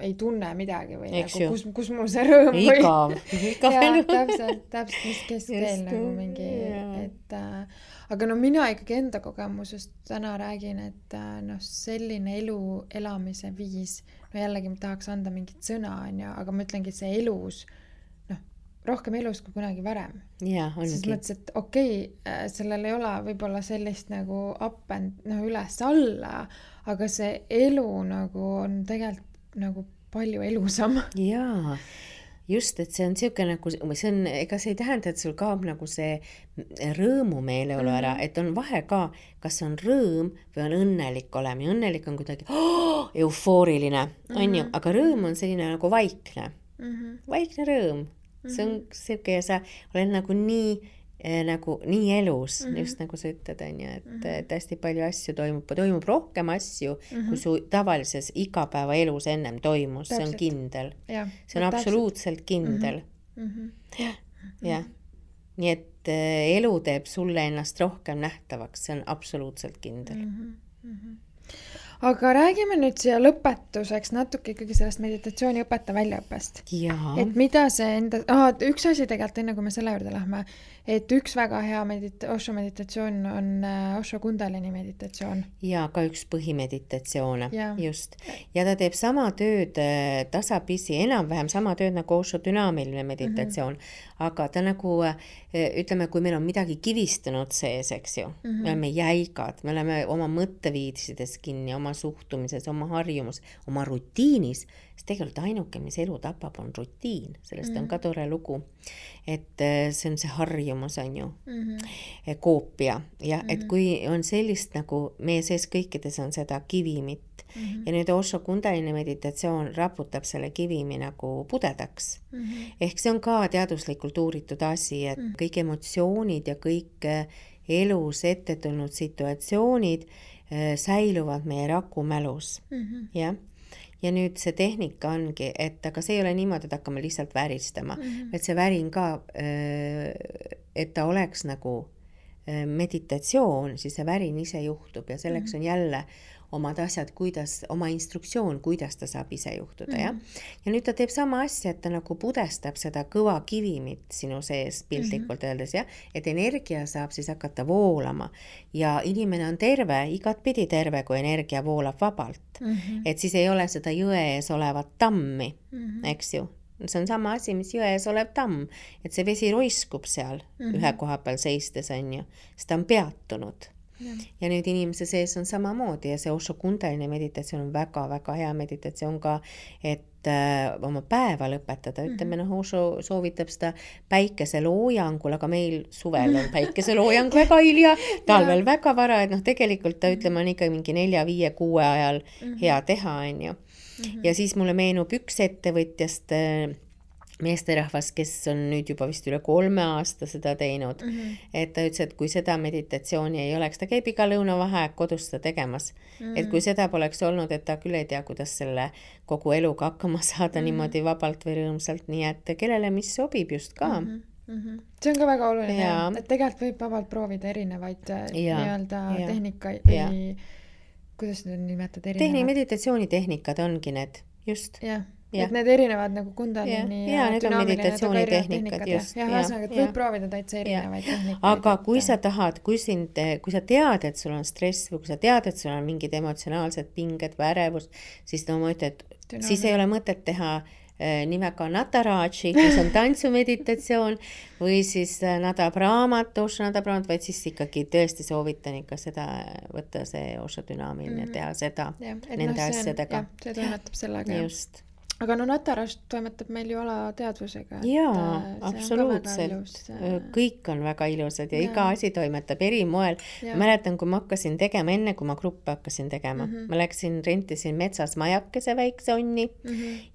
ei tunne midagi või nagu, kus mul see rõõm või... Igav elu. Täpselt, mis keskkeel nagu mingi, et aga mina ikkagi enda kogemusest täna räägin, et selline elu elamise viis, jällegi ma tahaks anda mingit sõna, aga ma ütlengi, et see elus rohkem elus kui kunagi varem. Jaa, ongi. Siis mõttes, et okei, sellel ei ole võib-olla sellist nagu up and üles alla, aga see elu nagu on tegelikult nagu palju elusam. Jaa, just, et see on siuke nagu, ega see ei tähenda, et sul kaob nagu see rõõmumeeleolu ära, et on vahe ka, kas on rõõm või on õnnelik olema. Ja õnnelik on kuidagi eufooriline, on ju, aga rõõm on selline nagu vaikne. Vaikne rõõm. See on siuke ja sa oled nagu nii elus, just nagu sa ütled, on ju, et hästi palju asju toimub rohkem asju, kui su tavalises igapäeva elus ennem toimus, see on kindel. See on absoluutselt kindel. Jah. Nii et elu teeb sulle ennast rohkem nähtavaks, see on absoluutselt kindel. Aga räägime nüüd siia lõpetuseks natuke ikkagi sellest meditatsiooni õpetaja väljaõppest. Et mida see üks asi tegelikult enne, kui me selle juurde lähme, et üks väga hea Osho meditatsioon on Osho Kundalini meditatsioon. Ja ka üks põhimeditatsioone, just. Ja ta teeb sama tööd tasapisi, enam-vähem sama tööd nagu Osho dünaamiline meditatsioon, aga ta nagu, ütleme, kui meil on midagi kivistunud sees, eks ju, me oleme jäigad, me oleme oma mõtteviisides kinni, oma suhtumises, oma harjumus, oma rutiinis, siis tegelikult ainuke, mis elu tapab, on rutiin, sellest on ka tore lugu, et see on see harjumus, on ju, koopia, ja et kui on sellist nagu meie sees kõikides on seda kivimit, ja nüüd Osho Kundalini meditatsioon raputab selle kivimi nagu pudedaks. Ehk see on ka teaduslikult uuritud asi, et kõik emotsioonid ja kõik elus ette tulnud situatsioonid säiluvad meie rakumälus. Ja nüüd see tehnika ongi, et aga see ei ole niimoodi, et hakkame lihtsalt väristama, et see värin ka, et ta oleks nagu meditatsioon, siis see värin ise juhtub ja selleks on jälle omad asjad, oma instruktsioon, kuidas ta saab ise juhtuda. Ja nüüd ta teeb sama asja, et ta nagu pudestab seda kõva kivimit sinu sees piltlikult öeldes, et energia saab siis hakata voolama ja inimene on terve, igatpidi terve, kui energia voolab vabalt. Et siis ei ole seda jõe ees olevat tammi, eks ju. See on sama asi, mis jõe ees olev tamm, et see vesi roiskub seal ühe koha peal seistes, on ju, sest ta on peatunud. Ja nüüd inimese sees on samamoodi ja see Osho Kundalini meditatsioon on väga-väga hea meditatsioon ka, et oma päeva lõpetada. Ütleme, Osho soovitab seda päikeseloojangul, aga meil suvel on päikeseloojang väga hilja, talvel väga vara, et tegelikult ta ütleme on ikka mingi 4, 5, 6 ajal hea teha, on ju. Ja siis mulle meenub üks ettevõtjast, meesterahvas, kes on nüüd juba vist üle 3 aasta seda teinud, et ta ütles, et kui seda meditatsiooni ei oleks, ta käib iga lõunavaheaeg kodus seda tegemas, et kui seda poleks olnud, et ta küll ei tea, kuidas selle kogu eluga hakkama saada niimoodi vabalt või rõõmsalt, nii et kellele mis sobib just ka. See on ka väga oluline, et tegelikult võib vabalt proovida erinevaid nii-öelda tehnikaid või kuidas need nimetad erinevad? Meditatsioonitehnikad ongi need, just. Jah. Et need erinevad nagu kundalini ja need on meditatsioonitehnikad, just. Ja ühesõnaga, et võib proovida täitsa erinevaid tehnikaid. Aga kui sa tahad, kui sa tead, et sul on stress või kui sa tead, et sul on mingid emotsionaalsed pinged või ärevus, siis ma ütlen, et siis ei ole mõtet teha nimega Nataraji, mis on tantsumeditatsioon või siis Nada Brahmat, Osho Nada Brahmat, vaid siis ikkagi tõesti soovitan ikka seda võtta see Osho dünaamiline, teha seda nende asjadega. See toimetab sellega. Just. Aga Nataraj toimetab meil ju alateadvusega. Jaa, absoluutselt. Kõik on väga ilusad ja iga asi toimetab eri moel. Mäletan, kui ma hakkasin tegema, enne kui ma gruppe hakkasin tegema, ma rentisin metsas majakese väikse onni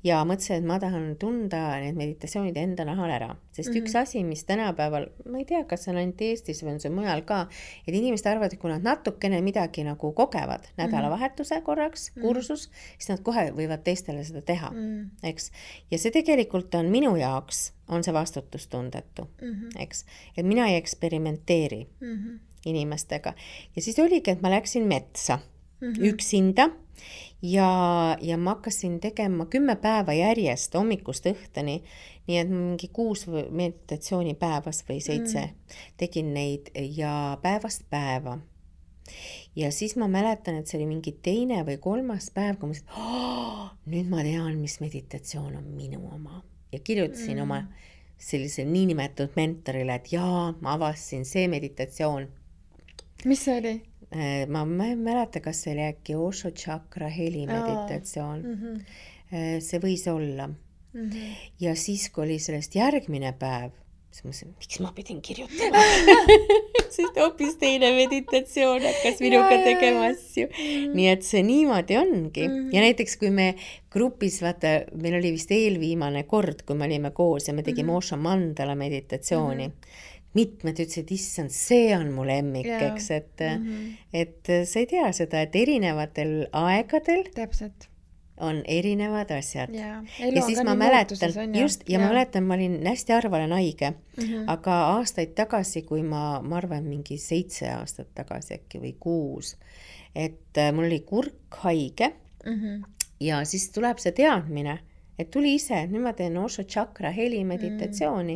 ja mõtlesin, et ma tahan tunda need meditatsioonid enda nahal ära. Sest üks asi, mis tänapäeval, ma ei tea, kas see on ainult Eestis või on see mujal ka, et inimesed arvavad, et kui nad natukene midagi nagu kogevad nädalavahetuse korraks, kursus, siis nad kohe võivad teistele seda teha. Eks? Ja see tegelikult on minu jaoks, on see vastutustundetu, eks? Et mina ei eksperimenteeri inimestega. Ja siis oligi, et ma läksin metsa üksinda ja ma hakkasin tegema 10 päeva järjest hommikust õhtuni, nii et mingi 6 meditatsiooni päevas või 7 tegin neid ja päevast päeva. Ja siis ma mäletan, et see oli mingi 2. või 3. päev, kui ma ütlesin, nüüd ma tean, mis meditatsioon on minu oma. Ja kirjutasin oma sellise niinimetatud mentorile, et jaa, ma avastasin see meditatsioon. Mis see oli? Ma ei mäleta, kas see oli äkki Osho Chakra heli meditatsioon. See võis olla. Ja siis, kui oli sellest järgmine päev, siis ma mõtlesin, miks ma pidin kirjutama? Sest hoopis teine meditatsioon hakkas minuga tegema asju. Nii et see niimoodi ongi. Ja näiteks, kui me grupis, vaata, meil oli vist eelviimane kord, kui me olime koos ja me tegime Osho mandala meditatsiooni. Mitmed ütlesid, issand, see on mu lemmik, eks, et sa ei tea seda, et erinevatel aegadel täpselt on erinevad asjad. Ja siis ma mäletan, ma mäletan, ma olin hästi harva olen haige, aga aastaid tagasi, kui ma arvan mingi 7 aastat tagasi äkki või 6, et mul oli kurk haige ja siis tuleb see teadmine, et tuli ise, nüüd ma teen Osho Chakra heli meditatsiooni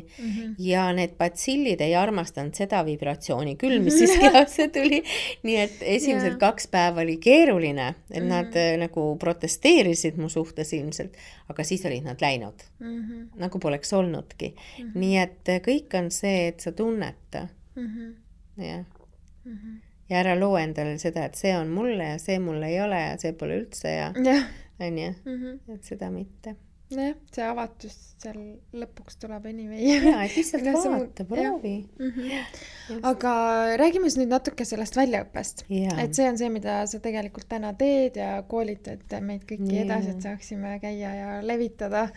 ja need batsillid ei armastanud seda vibratsiooni küll, mis siis kehasse tuli. Nii et esimesed 2 päeva oli keeruline, et nad nagu protesteerisid mu suhtes ilmselt, aga siis olid nad läinud. Nagu poleks olnudki. Nii et kõik on see, et sa tunneta. Ja ära loo endale seda, et see on mulle ja see mulle ei ole ja see pole üldse ja on ju, et seda mitte. Jah, see avatus seal lõpuks tuleb anyway. Jaa, et lihtsalt vaata, proovi. Aga räägime nüüd natuke sellest väljaõppest. Et see on see, mida sa tegelikult täna teed ja koolitad meid kõiki edasi, et saaksime käia ja levitada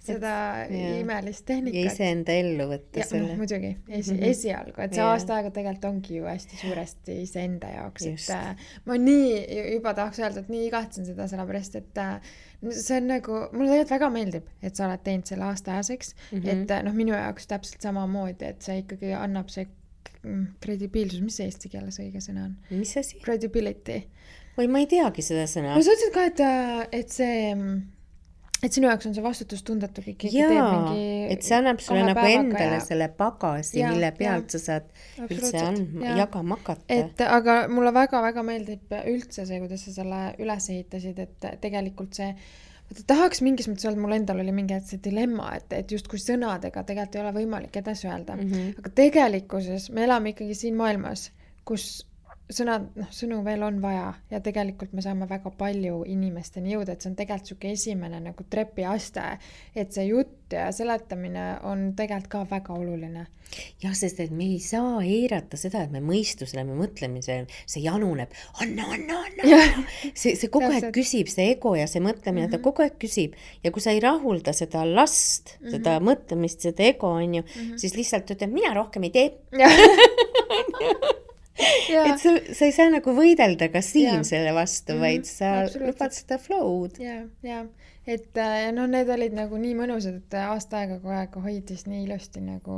seda imelist tehnikat. Ja iseenda ellu võtta selle. Ja muidugi, esialgu. Et see aasta aega tegelikult ongi ju hästi suuresti iseenda jaoks. Et ma nii juba tahaks öelda, et nii igatsen seda sellepärast, et see on nagu, mulle tegelikult väga meeldib, et sa oled teinud selle aastaajaseks, et minu jaoks täpselt samamoodi, et see ikkagi annab see kredibiilsus, mis see eesti keeles õige sõna on? Mis asi? Credibility. Või ma ei teagi seda sõna. No sa ütlesid ka, et see, et sinu jaoks on see vastutustundetu kõik teeb mingi et see annab sulle nagu endale selle pagasi, mille pealt sa saad üldse jagama hakata. Aga mulle väga-väga meeldib üldse see, kuidas sa selle üles ehitasid, et tegelikult see tahaks mingis mõttes öelda, mul endal oli mingi see dilemma, et just kui sõnadega tegelikult ei ole võimalik edasi öelda. Aga tegelikkuses me elame ikkagi siin maailmas, kus sõnu veel on vaja ja tegelikult me saame väga palju inimesteni jõuda, et see on tegelikult siuke esimene nagu trepiaste, et see jutt ja seletamine on tegelikult ka väga oluline. Jah, sest et me ei saa eirata seda, et me mõistusele, me mõtlemisel, see januneb, anna. See kogu aeg küsib, see ego ja see mõtlemine, ta kogu aeg küsib ja kui sa ei rahulda seda last, seda mõtlemist, seda ego, on ju, siis lihtsalt ütleb, mina rohkem ei tee. Et sa ei saa nagu võidelda ka siin selle vastu, vaid sa lubad seda flow'd. Ja, et no need olid nagu nii mõnusad, et aasta aega kogu aeg hoidis nii ilusti nagu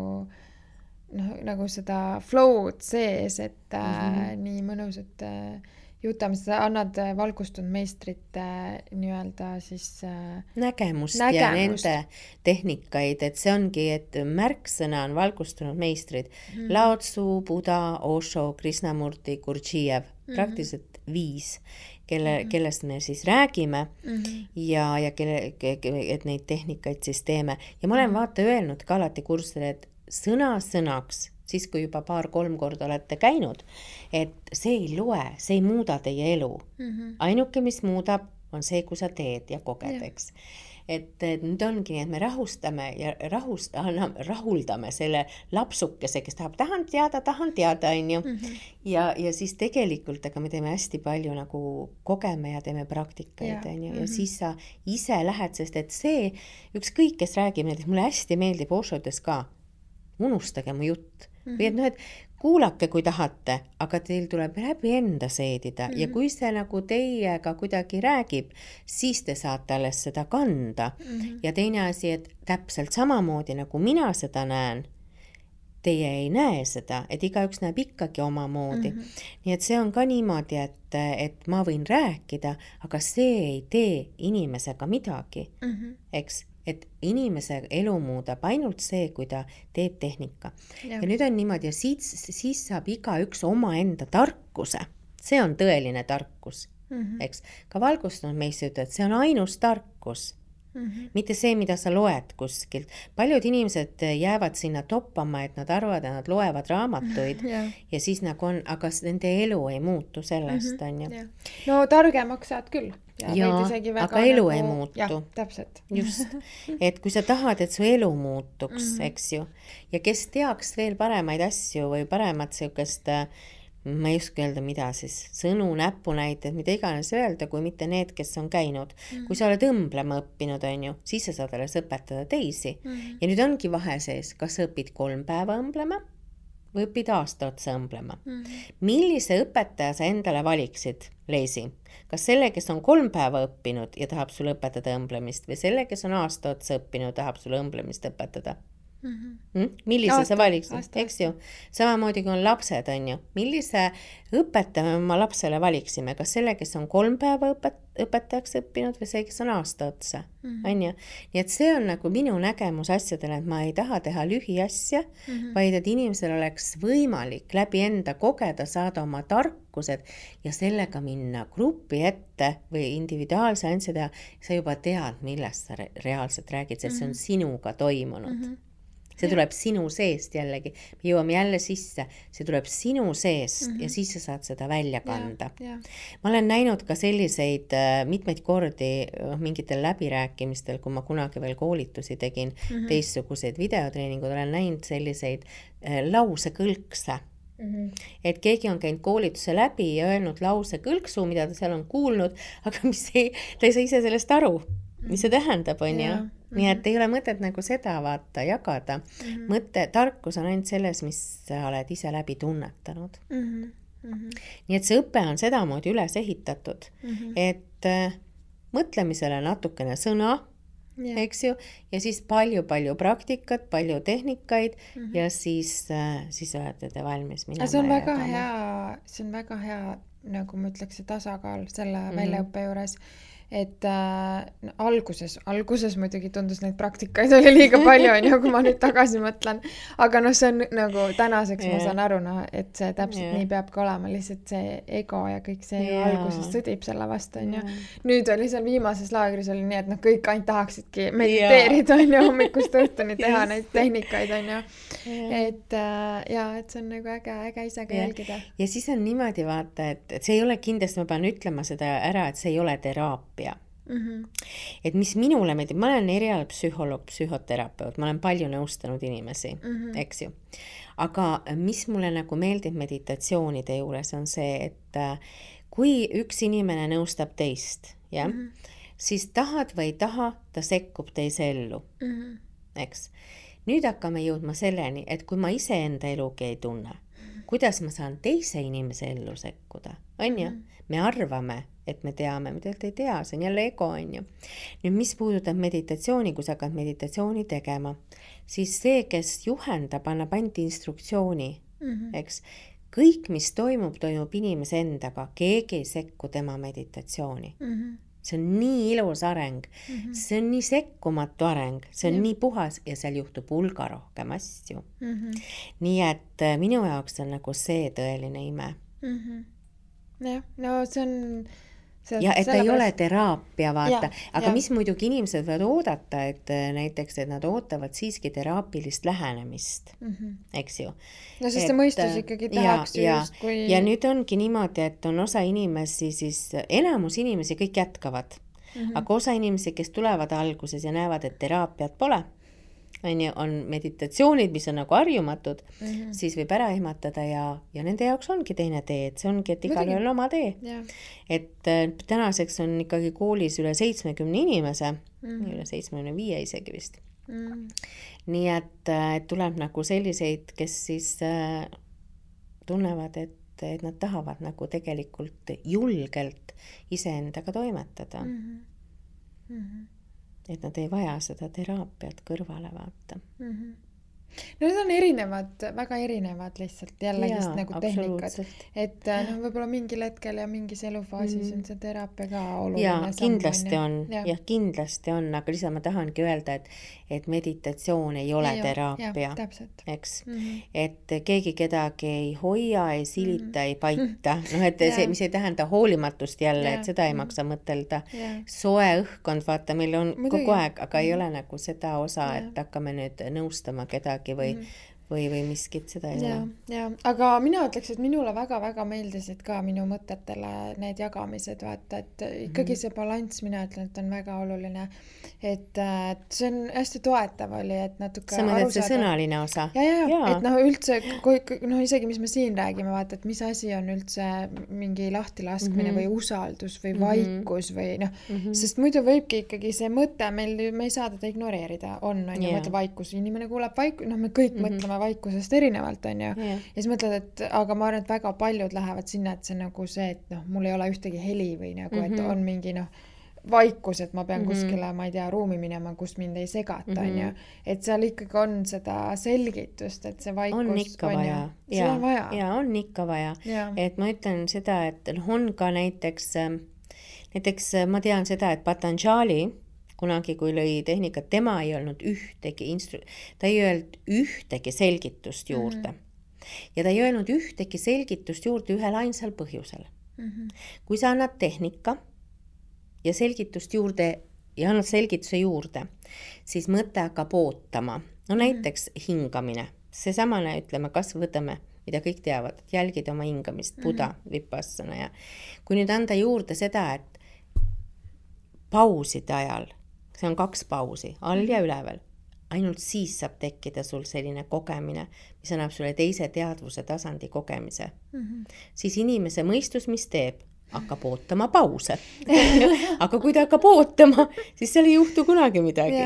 seda flow'd sees, et nii mõnusad jutame, sa annad valgustunud meistrite nii-öelda siis nägemust ja nende tehnikaid, et see ongi, et märksõna on valgustunud meistrid. Lao Tzu, Buddha, Osho, Krishnamurti, Gurdjiev, praktiliselt 5, kellest me siis räägime ja et neid tehnikaid siis teeme. Ja ma olen vaata öelnud ka alati kursile, et sõnaks, siis kui juba 2-3 korda olete käinud, et see ei loe, see ei muuda teie elu. Ainuke, mis muudab, on see, kui sa teed ja koged, eks. Et nüüd ongi nii, et me rahustame ja rahuldame selle lapsukese, kes tahan teada, on ju. Ja siis tegelikult, aga me teeme hästi palju nagu kogeme ja teeme praktikaid, on ju. Ja siis sa ise lähed, sest et see, ükskõik, kes räägib, näiteks mulle hästi meeldib Oshodes ka, unustage mu jutt. Või et noh, et kuulake, kui tahate, aga teil tuleb läbi enda seedida ja kui see nagu teiega kuidagi räägib, siis te saate alles seda kanda. Ja teine asi, et täpselt samamoodi nagu mina seda näen, teie ei näe seda, et igaüks näeb ikkagi omamoodi. Nii et see on ka niimoodi, et ma võin rääkida, aga see ei tee inimesega midagi, eks? Et inimese elu muudab ainult see, kui ta teeb tehnika. Ja nüüd on niimoodi, ja siis saab igaüks oma enda tarkuse. See on tõeline tarkus, eks? Ka valgustunud meist ütlevad, et see on ainus tarkus. Mitte see, mida sa loed kuskilt. Paljud inimesed jäävad sinna toppama, et nad arvavad, et nad loevad raamatuid ja siis nagu on, aga nende elu ei muutu sellest, on ju. No targemaks saad küll. Ja, aga elu ei muutu. Ja, täpselt. Just. Et kui sa tahad, et su elu muutuks, eks ju, ja kes teaks veel paremaid asju või paremat siukest, ma ei oska öelda, mida siis, sõnu, näpunäited, mida iganes öelda, kui mitte need, kes on käinud. Kui sa oled õmblema õppinud, on ju, siis sa saad alles õpetada teisi. Ja nüüd ongi vahe sees, kas sa õpid 3 päeva õmblema või õpid aasta otsa õmblema. Millise õpetaja sa endale valiksid, Leisi? Kas selle, kes on 3 päeva õppinud ja tahab sulle õpetada õmblemist või selle, kes on aasta otsa õppinud ja tahab sulle õmblemist õpetada? Millise sa valiksid, eks ju? Samamoodi kui on lapsed, on ju. Millise õpetaja me oma lapsele valiksime? Kas selle, kes on 3 päeva õpetajaks õppinud või see, kes on aasta otsa? On ju? Nii et see on nagu minu nägemus asjadele, et ma ei taha teha lühiasja, vaid et inimesel oleks võimalik läbi enda kogeda, saada oma tarkused ja sellega minna grupi ette või individuaalse ansja teha. Sa juba tead, millest sa reaalselt räägid, sest see on sinuga toimunud. See tuleb sinu seest jällegi. Me jõuame jälle sisse. See tuleb sinu seest ja siis sa saad seda välja kanda. Ma olen näinud ka selliseid mitmeid kordi mingitel läbirääkimistel, kui ma kunagi veel koolitusi tegin, teistsuguseid videotreeningud, olen näinud selliseid lausekõlkse. Et keegi on käinud koolituse läbi ja öelnud lausekõlksu, mida ta seal on kuulnud, aga ta ei saa ise sellest aru, mis see tähendab, on ju. Nii et ei ole mõtet nagu seda vaata jagada. Tarkus on ainult selles, mis sa oled ise läbi tunnetanud. Nii et see õpe on sedamoodi üles ehitatud, et mõtlemisele natukene sõna, eks ju, ja siis palju praktikat, palju tehnikaid ja siis olete te valmis minema. See on väga hea, nagu ma ütleks, tasakaal selle väljaõppe juures. et alguses muidugi tundus neid praktikaid oli liiga palju, on ju, kui ma nüüd tagasi mõtlen, aga noh, see on nagu tänaseks ma saan aru, noh, et see täpselt nii peabki olema, lihtsalt see ego ja kõik see alguses sõdib selle vastu, on ju. Nüüd oli seal viimases laagris oli nii, et noh, kõik ainult tahaksidki mediteerida, on ju, hommikust õhtuni teha neid tehnikaid, on ju. Et see on nagu äge ise ka jälgida. Ja siis on niimoodi vaata, et see ei ole kindlasti, ma pean ütlema seda ära, et see ei ole teraapia. Et mis minule meeldib, ma olen erial psühholoog, psühhoterapeut, ma olen palju nõustanud inimesi, eks ju. Aga mis mulle nagu meeldib meditatsioonide juures on see, et kui üks inimene nõustab teist, siis tahad või ei taha, ta sekkub teise ellu, eks. Nüüd hakkame jõudma selleni, et kui ma ise enda elugi ei tunne, kuidas ma saan teise inimese ellu sekkuda, on ju? Me arvame, et me teame, mida ei tea, see on jälle ego, on ju. Nüüd, mis puudutab meditatsiooni, kui sa hakkad meditatsiooni tegema, siis see, kes juhendab, annab ainult instruktsiooni, eks. Kõik, mis toimub inimese endaga, keegi ei sekku tema meditatsiooni. See on nii ilus areng, see on nii sekkumatu areng, see on nii puhas ja seal juhtub hulga rohkem asju. Nii et minu jaoks on nagu see tõeline ime. Jah, no see on... Ja et ei ole teraapia, vaata. Aga mis muidugi inimesed võivad oodata, et näiteks, et nad ootavad siiski teraapilist lähenemist, eks ju. No sest see mõistus ikkagi tahaks just, kui... Ja nüüd ongi niimoodi, et on osa inimesi, siis enamus inimesi kõik jätkavad. Aga osa inimesi, kes tulevad alguses ja näevad, et teraapiat pole, on meditatsioonid, mis on nagu harjumatud, siis võib ära ehmatada ja nende jaoks ongi teine tee, et see ongi, et igal ühel oma tee. Et tänaseks on ikkagi koolis üle 70 inimese, üle 75 isegi vist. Nii et tuleb nagu selliseid, kes siis tunnevad, et nad tahavad nagu tegelikult julgelt iseendaga toimetada. Et nad ei vaja seda teraapiat kõrvale vaata. No need on erinevad, väga erinevad lihtsalt jällegist nagu tehnikad. Et võib-olla mingil hetkel ja mingis elufaasis on see teraapia ka oluline. Ja kindlasti on, kindlasti on, aga lihtsalt ma tahangi öelda, et meditatsioon ei ole teraapia, eks. Et keegi kedagi ei hoia, ei silita, ei paita. No et see, mis ei tähenda hoolimatust jälle, et seda ei maksa mõtelda. Soe õhkkond, vaata, meil on kogu aeg, aga ei ole nagu seda osa, et hakkame nüüd nõustama kedagi või miskit, seda ei ole. Aga mina ütleks, et minule väga-väga meeldisid ka minu mõtetele need jagamised, vaata, et ikkagi see balanss, mina ütlen, et on väga oluline, et see on hästi toetav oli, et natuke sa mõtled see sõnaline osa? Et üldse, isegi mis me siin räägime, vaata, et mis asi on üldse mingi lahtilaskmine või usaldus või vaikus või sest muidu võibki ikkagi see mõte, me ei saa teda ignoreerida, on ju mõte vaikus, inimene kuuleb vaikus, me kõik mõtleme vaikusest erinevalt, on ju. Ja siis mõtled, et aga ma arvan, et väga paljud lähevad sinna, et see nagu see, et mul ei ole ühtegi heli või nagu, et on mingi vaikus, et ma pean kuskile, ma ei tea, ruumi minema, kus mind ei segata, on ju. Et seal ikkagi on seda selgitust, et see vaikus on ikka vaja. Ja on ikka vaja. Et ma ütlen seda, et on ka näiteks ma tean seda, et Patanjali kunagi, kui lõi tehnikat, tema ei olnud ta ei öelnud ühtegi selgitust juurde. Ja ta ei öelnud ühtegi selgitust juurde ühel ainsal põhjusel. Kui sa annad tehnika ja selgitust juurde ja annad selgituse juurde, siis mõte hakkab ootama. No näiteks hingamine. See samane, ütleme, kas võtame, mida kõik teavad, et jälgida oma hingamist, Buddha, vipassana. Ja kui nüüd anda juurde seda, et pauside ajal, see on 2 pausi, all ja üleval. Ainult siis saab tekkida sul selline kogemine, mis annab sulle teise teadvuse tasandi kogemise. Siis inimese mõistus, mis teeb, hakkab ootama pause. Aga kui ta hakkab ootama, siis seal ei juhtu kunagi midagi.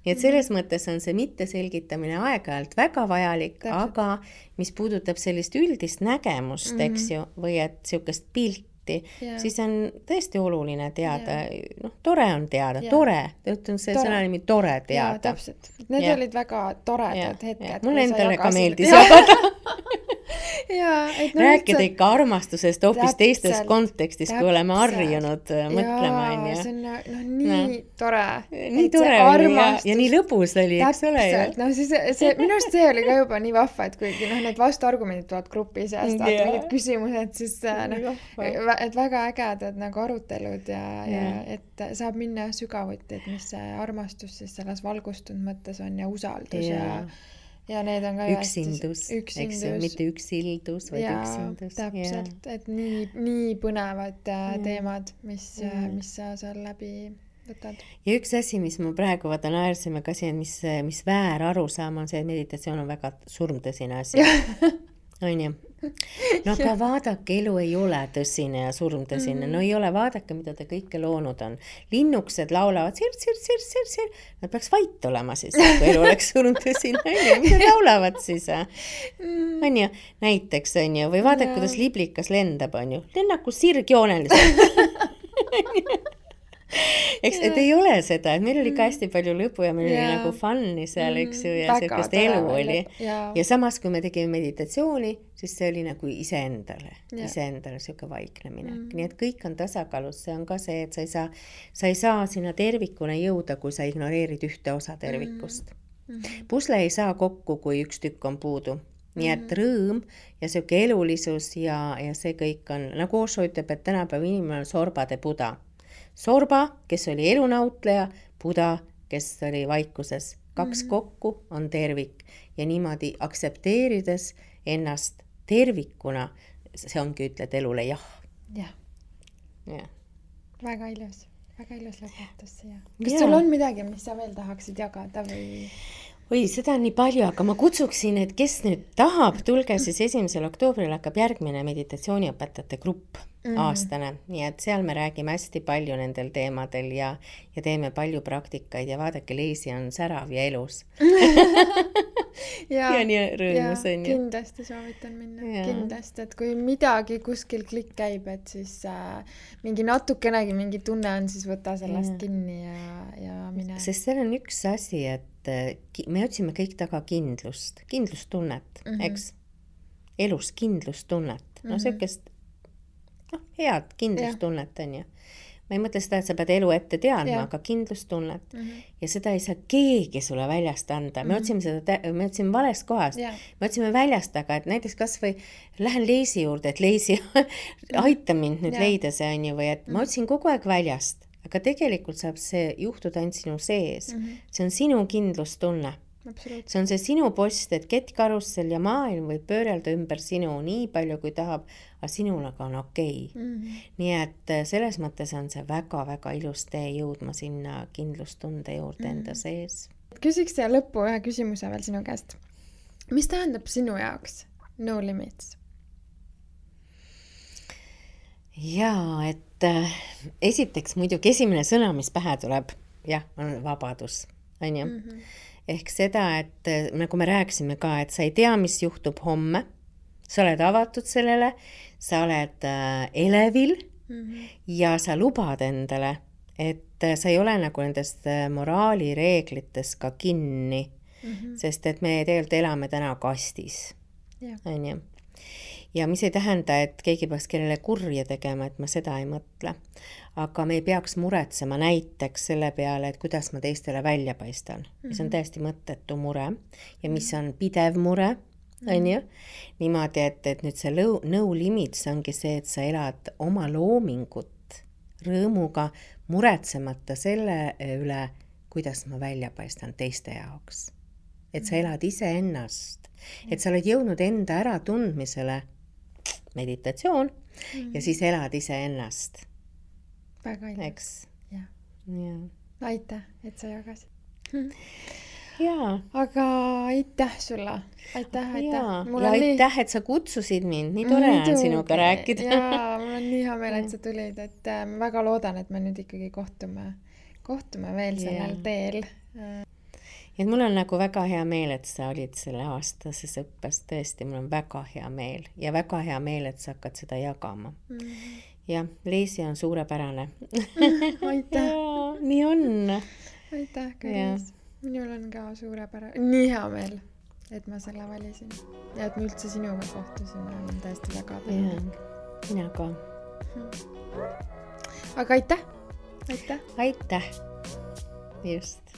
Nii et selles mõttes on see mitteselgitamine aeg-ajalt väga vajalik, aga mis puudutab sellist üldist nägemust, eks ju, või et siukest pilti, siis on tõesti oluline teada, tore on teada, tore, ütlen see sõna nimi tore teada. Täpselt, need olid väga toredad hetked. Mul endale ka meeldis jagada. rääkida ikka armastusest hoopis teistes kontekstis, kui oleme harjunud mõtlema, on ju. See on nii tore. Nii tore oli ja nii lõbus oli, eks ole. Minu arust see oli ka juba nii vahva, et kuigi need vastuargumendid tulevad grupi seast, vaata mingid küsimused, siis et väga ägedad nagu arutelud ja et saab minna sügavuti, et mis see armastus siis selles valgustunud mõttes on ja usaldus ja need on ka üksindus, eks ju, mitte üksildus, vaid üksindus. Täpselt, et nii põnevad teemad, mis sa seal läbi võtad. Ja üks asi, mis ma praegu naersime ka siin, mis väär arusaam on see, et meditatsioon on väga surmtõsine asi. On ju? No aga vaadake, elu ei ole tõsine ja surmtõsine. No ei ole, vaadake, mida te kõike loonud on. Linnukesed laulavad sir. Nad peaks vait olema siis, kui elu oleks surmtõsine. Mida laulavad siis? On ju? Näiteks on ju. Või vaadake, kuidas liblikas lendab, on ju. Lennaku sirgjooneliselt. Eks, et ei ole seda, et meil oli ka hästi palju lõbu ja meil oli nagu fun'i seal, eks ju, ja sellist elu oli. Ja samas, kui me tegime meditatsiooni, siis see oli nagu iseendale siuke vaiknemine. Nii et kõik on tasakaalus, see on ka see, et sa ei saa sinna tervikuna jõuda, kui sa ignoreerid ühte osa tervikust. Pusle ei saa kokku, kui üks tükk on puudu. Nii et rõõm ja siuke elulisus ja see kõik on, nagu Osho ütleb, et tänapäeva inimene on sorbade Buda. Sorba, kes oli elunautleja, Buda, kes oli vaikuses. Kaks kokku on tervik ja niimoodi aksepteerides ennast tervikuna, see ongi ütled elule jah. Ja. Väga ilus lõpetus siia. Kas sul on midagi, mis sa veel tahaksid jagada või? Oi, seda on nii palju, aga ma kutsuksin, et kes nüüd tahab, tulge siis 1. oktoobril hakkab järgmine meditatsiooniõpetajate grupp aastane. Nii et seal me räägime hästi palju nendel teemadel ja teeme palju praktikaid ja vaadake, Leisi on särav ja elus. ja nii rõõmus on. Kindlasti soovitan minna. Kindlasti, et kui midagi kuskil klikk käib, et siis mingi natukenegi mingi tunne on, siis võta sellest kinni ja mine. Sest seal on üks asi, et me otsime kõik taga kindlustunnet, eks? Elus kindlustunnet. No sellist head kindlustunnet on ju. Ma ei mõtle seda, et sa pead elu ette teadma, aga kindlustunnet. Ja seda ei saa keegi sulle väljast anda. Me otsime valest kohast. Me otsime väljast, aga et näiteks kas või lähen Leisi juurde, et Leisi aita mind nüüd leida see on ju, või et ma otsin kogu aeg väljast. Aga tegelikult saab see juhtuda ainult sinu sees. See on sinu kindlustunne. See on see sinu post, et kettkarussel ja maailm võib pöörelda ümber sinu nii palju, kui tahab, aga sinul aga on okei. Nii et selles mõttes on see väga-väga ilus tee jõudma sinna kindlustunde juurde enda sees. Küsiks siia lõppu ühe küsimuse veel sinu käest. Mis tähendab sinu jaoks no limits? Jaa, et esiteks muidugi esimene sõna, mis pähe tuleb, on vabadus, on ju? Ehk seda, et nagu me rääkisime ka, et sa ei tea, mis juhtub homme, sa oled avatud sellele, sa oled elevil ja sa lubad endale, et sa ei ole nagu nendest moraalireeglites ka kinni, sest et me tegelikult elame täna kastis, on ju? Ja mis ei tähenda, et keegi peaks kellele kurja tegema, et ma seda ei mõtle. Aga me ei peaks muretsema näiteks selle peale, et kuidas ma teistele välja paistan. Mis on täiesti mõttetu mure ja mis on pidev mure, on ju? Niimoodi, et nüüd see no limits ongi see, et sa elad oma loomingut rõõmuga muretsemata selle üle, kuidas ma välja paistan teiste jaoks. Et sa elad ise ennast, et sa oled jõudnud enda ära tundmisele meditatsioon ja siis elad ise ennast. Väga ilus. Eks? Ja. Aitäh, et sa jagasid. Aga aitäh sulle. Aitäh. Ja aitäh, et sa kutsusid mind. Nii tore on sinuga rääkida. Ja, mul on nii hea meel, et sa tulid. Et ma väga loodan, et me nüüd ikkagi kohtume veel sellel teel. Et mul on nagu väga hea meel, et sa olid selle aastases õppes. Tõesti, mul on väga hea meel. Ja väga hea meel, et sa hakkad seda jagama. Ja Leisi on suurepärane. Aitäh. Nii on. Aitäh, Karis. Minul on ka suurepärane. Nii hea meel. et ma selle valisin ja et me üldse sinuga kohtusime, on tõesti väga tänulik. Mina ka. Aga aitäh! Aitäh! Just.